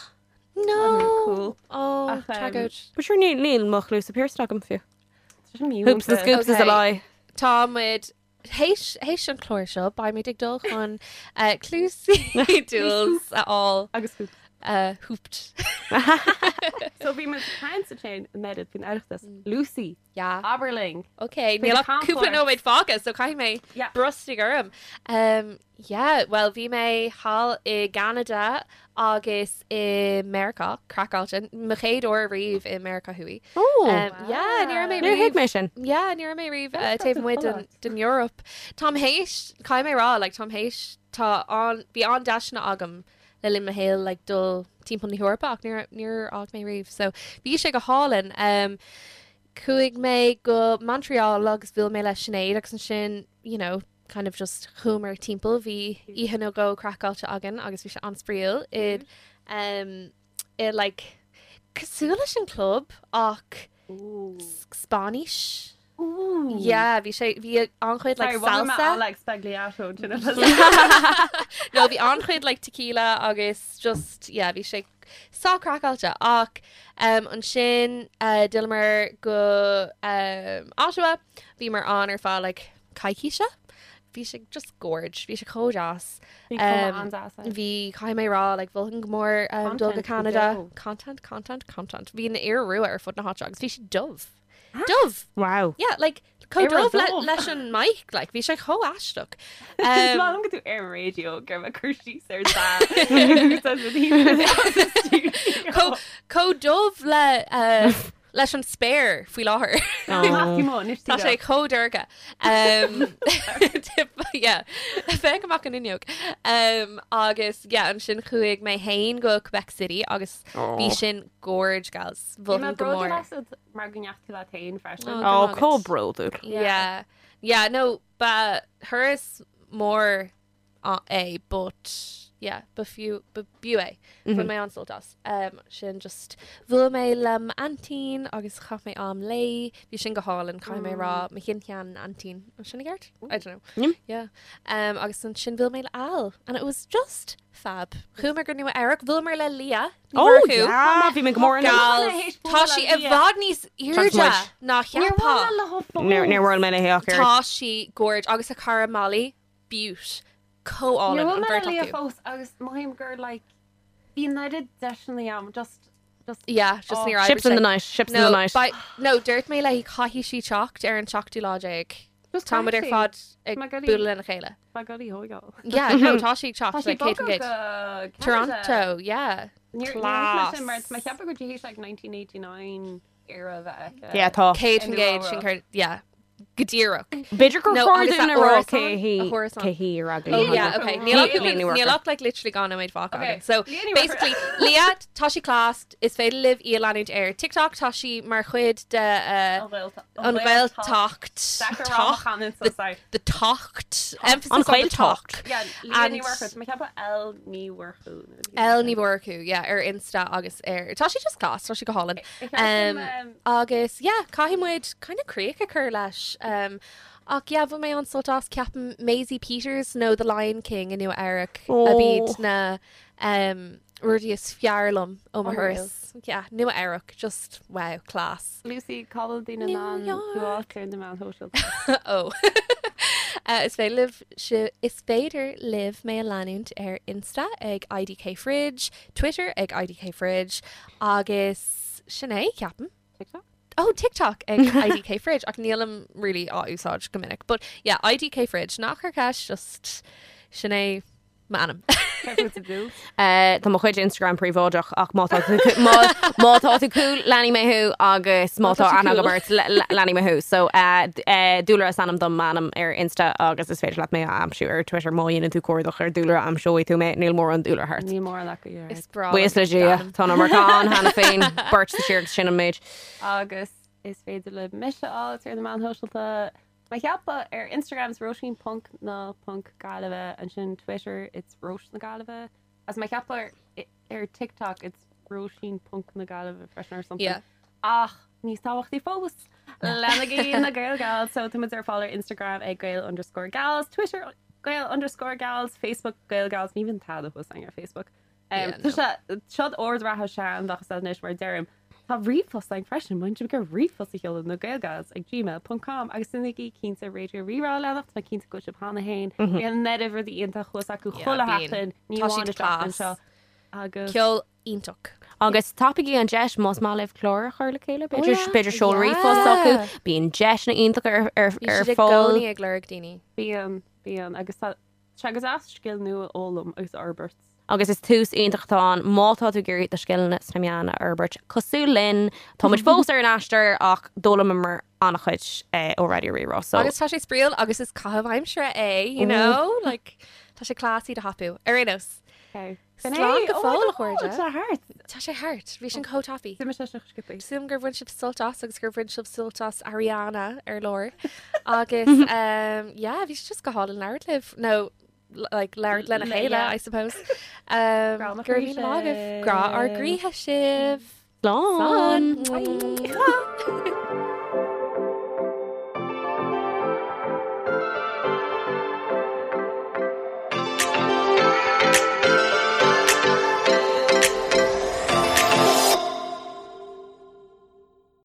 No. cool. Oh, Ach, tragóid. But sure níl níl mo chluasa pierced agam fiú. an Hoops and scoops is a Okay. lie. Tá muid théis théis an chlár seo beimid ag dul chun cluasaí Jules a fháil Agus hoops. hooped. So bhí muid caint ansin Meredith faoin Oireachtas. Lucy, Yeah. abair linn. Okay, Faoi níl na ach cúpla camchuairt. nóiméad fágtha, so caithfidh mé Yeah. brostú orm. Um, yeah, well bhí mé thall i gCeanada agus i Meiriceá, craiceáilte, mo chéad uair riamh i Meiriceá Thuaidh. Oh. Um, yeah, ní raibh mé Níor thuig riamh. mé sin. Yeah, ní raibh mé riamh That's taobh such a amuigh den, lot. den Eoraip. Táim théis, caithfidh mé rá, like, táim théis, tá an, bhí an-deiseanna agam le linn mo shaoil like, dul timpeall na hEorpa ach níor, níor fhág mé riamh. So bhí sé go hálainn. Um, chuaigh mé go Montreal agus bhuail mé le Sinéad agus ansin, you know, kind of just chuamar timpeall bhí oíche nó dhó craiceáilte againn agus bhí sé an-spraíúil i um, i like cosúil leis an club ach Spáinnis. Ooh. Yeah, bhí sé bhí an-chuid like Sorry, bhí mé salsa. Alex Spagliato sin No, bhí an-chuid like tequila agus just yeah, bhí sé sách craiceáilte ach um, ansin uh, d'fhilleamar go um, Ottawa bhíomar ann ar feadh like coicíse. Bhí sé just gorge, bhí sé chomh deas. Um, Bhí caithfidh mé rá like mholfainn go mór um, dul go Content go Canada. deo. Content, content, content. Bhí an iora rua ar fud na háite agus bhí sé dubh. Dubh! Wow. Yeah, like chomh Iora dubh le, dubh. leis an mic, like bhí sé chomh aisteach. Is Um, maith liom go tú ar an radio gur me cur síos ar chomh chomh dubh le uh, leis an spéir faoi láthair. Tá sé chomh dorcha. Um, yeah, féach amach an fhuinneog. Um, agus yeah, ansin chuaigh mé féin go Quebec City agus bhí sin gorge gals. Mholfainn go mór. Mar go ndeachaigh tú leat féin freisin. Oh. Oh, chomh bródúil. Yeah. Yeah, no, ba thuras mór é, but yeah, ba fiú ba b'fhiú é. Bhain mé an-sult as. Um, sin just bhuail mé le m'aintín agus chaith mé am léi, bhí sin go hálainn caithfidh mé rá mo shin-shean-aintín. An sin i gceart? I don't know. Mm. Yeah. Um, agus ansin bhuail mé le Al and it was just fab. Chuamar go Nua Eabhrac, bhuaileamar le Leah Ní Oh, Mhurchú. yeah, bhí mé go mór in Gal, Théis tá bualadh sí le i Leah. bhfad níos airde ná cheapfá. Níor bhuail mé léi ach oiread. Tá sí gorge agus a cara Molly beaut chomh hálainn an bheirt Leah acu. fós agus mothaím gur like bhí oiread deiseanna agam just just Yeah, just Oh. ní Ships in the night, ships in No, the night. by, no, dúirt mé léi caithfidh sí teacht ar an seachtú lá déag. Just Tá muid ar caithfidh sí. fad ag Má goilí- bualadh lena chéile. Má goilí thógáil. Yeah, no, tá sí ag Tá teacht sí like céad bogtha gcéad. go Canada. Toronto, yeah. Níor Class. sin mar má cheapadh go dtí like 1989 era bheith aici. Yeah, tá. Céad In fan gcéad Nua sin cur, yeah. Go díreach. B'fhéidir gur No, chóir agus dúinn a a rá árasán, cé hí a hárasán. cé hí ar Oh yeah, okay. Níl ach Leah Ní níl Mhurchú. ach like literally dhá nóiméad fágtha Okay. againn. So Leah Ní Mhurchú. basically Leah tá sí class is féidir libh í a leanúint ar TikTok tá sí mar chuid de An Ghaeltacht. an Ghaeltacht Tacht. the tacht emphasis An on the Ghaeltacht. tacht. Yeah, Leah Ní And- Mhurchú. Má cheapadh L Ní Mhurchú. L Ní Mhurchú, yeah, ar Insta agus ar tá sí just class, tá sí go hálainn. Um, agus yeah, caithfidh muid kind of críoch a chur leis. Um, ach yeah, bhain mé an-sult as ceapaim Maisie Peters nó The Lion King i Nua Eabhrac a Oh. b'iad na um, rudaí is fearr liom ó mo Unreal. thuras. Yeah, Nua Eabhrac, just wow, class. Lucy cá bhfuil daoine New in ann York. tú a fháil ar na meáin shóisialta. oh. Uh, is féidir libh si- is féidir libh mé a leanúint ar Insta ag IDK Fridge, Twitter ag IDK Fridge, agus sin é ceapaim. TikTok? Oh, TikTok ag IDK Fridge ach nílim really á úsáid go minic. But yeah, IDK Fridge nach ar ceist just sin é M'ainm. Tá mo chuid Instagram príobháideach ach má tá tú má má tá tú cool leanfaidh mé thú agus má tá aithne agam ort leanfaidh mé thú. So Dúlra is ainm dom m'ainm ar Insta agus is féidir leat mé a aimsiú ar Twitter má dhéanann tú cuardach ar Dúlra aimseoidh tú mé níl mórán Dúlra thart. Níl mórán acu yeah. Is breá Buíochas le Dia tá an iomarca ann cheana féin beirt sa tír agus sin an méid. Agus is féidir libh mise a fháil ar na meáin shóisialta Mé ag ceapadh ar Instagram is Róisín ponc na ponc Gaillimhe, ansin Twitter it's Róis na Gaillimhe, agus mé ag ceapadh ar ar TikTok it's Róisín ponc na Gaillimhe freisin or something. Yeah. Ach níos tábhachtaí fós, leanaigí na Gael Gals, so tá muid ar fáil ar Instagram ag Gael underscore Gals, Twitter Gael underscore Gals, Facebook Gael Gals, ní bhíonn tada thuas againn ar Facebook. Yeah, Tá sé seod ord reatha sean bheadh sé anois mar deirim. Tá ríomhphost againn freisin, má tá sibh ag ríomhphost a sheoladh nagaelgals ag gmail ponc com agus déanaigí cinnte Raidió Rí-Rá a leanacht, tá mé cinnte go bhfuil sibh cheana féin. Bíonn an oiread rudaí iontach thuas acu Yeah, chuile bíonn. sheachtain, ní Tá amháin siad an tseachtain class. seo. Agus Ceol iontach. Agus tapaigí an deis más maith libh clár a chur le chéile, b'fhéidir yeah. b'fhéidir seol Yeah. ríomhphost acu, bíonn deiseanna iontacha ar ar Bhí ar siad i fáil. gcónaí ag lorg daoine. bíonn, bíonn agus tá Tá sé go deas scil nua a fhoghlaim agus a fhorbairt. Agus is tús iontach atá ann má tá tú ag iarraidh do scileanna sna meáin a fhorbairt. Cosúil linn, tá muid fós ar an aistear ach d'fhoghlaimíomar an-chuid ó Raidió Rí-Rá. So. Agus tá sé spraíúil agus is caitheamh aimsire é, you know? Like, tá sé class iad a thapú. Ar aon nós. Okay. Slán go fóill, a chairde. Tá sé thart. Tá sé thart. Bhí sin chomh tapaidh. D'imigh sé seo sciobtha. Sílim gur bhain sibh sult as agus gur bhain sibh sult as Ariana ar lár. Agus um, yeah, bhí sé just go hálainn labhairt libh. No, like, labhairt lena Le- chéile, yeah. I suppose. Um, Grá mo gur chroí míle maith agaibh. sibh. Grá ár gcroíthe sibh. Slán! Slán. Mwah.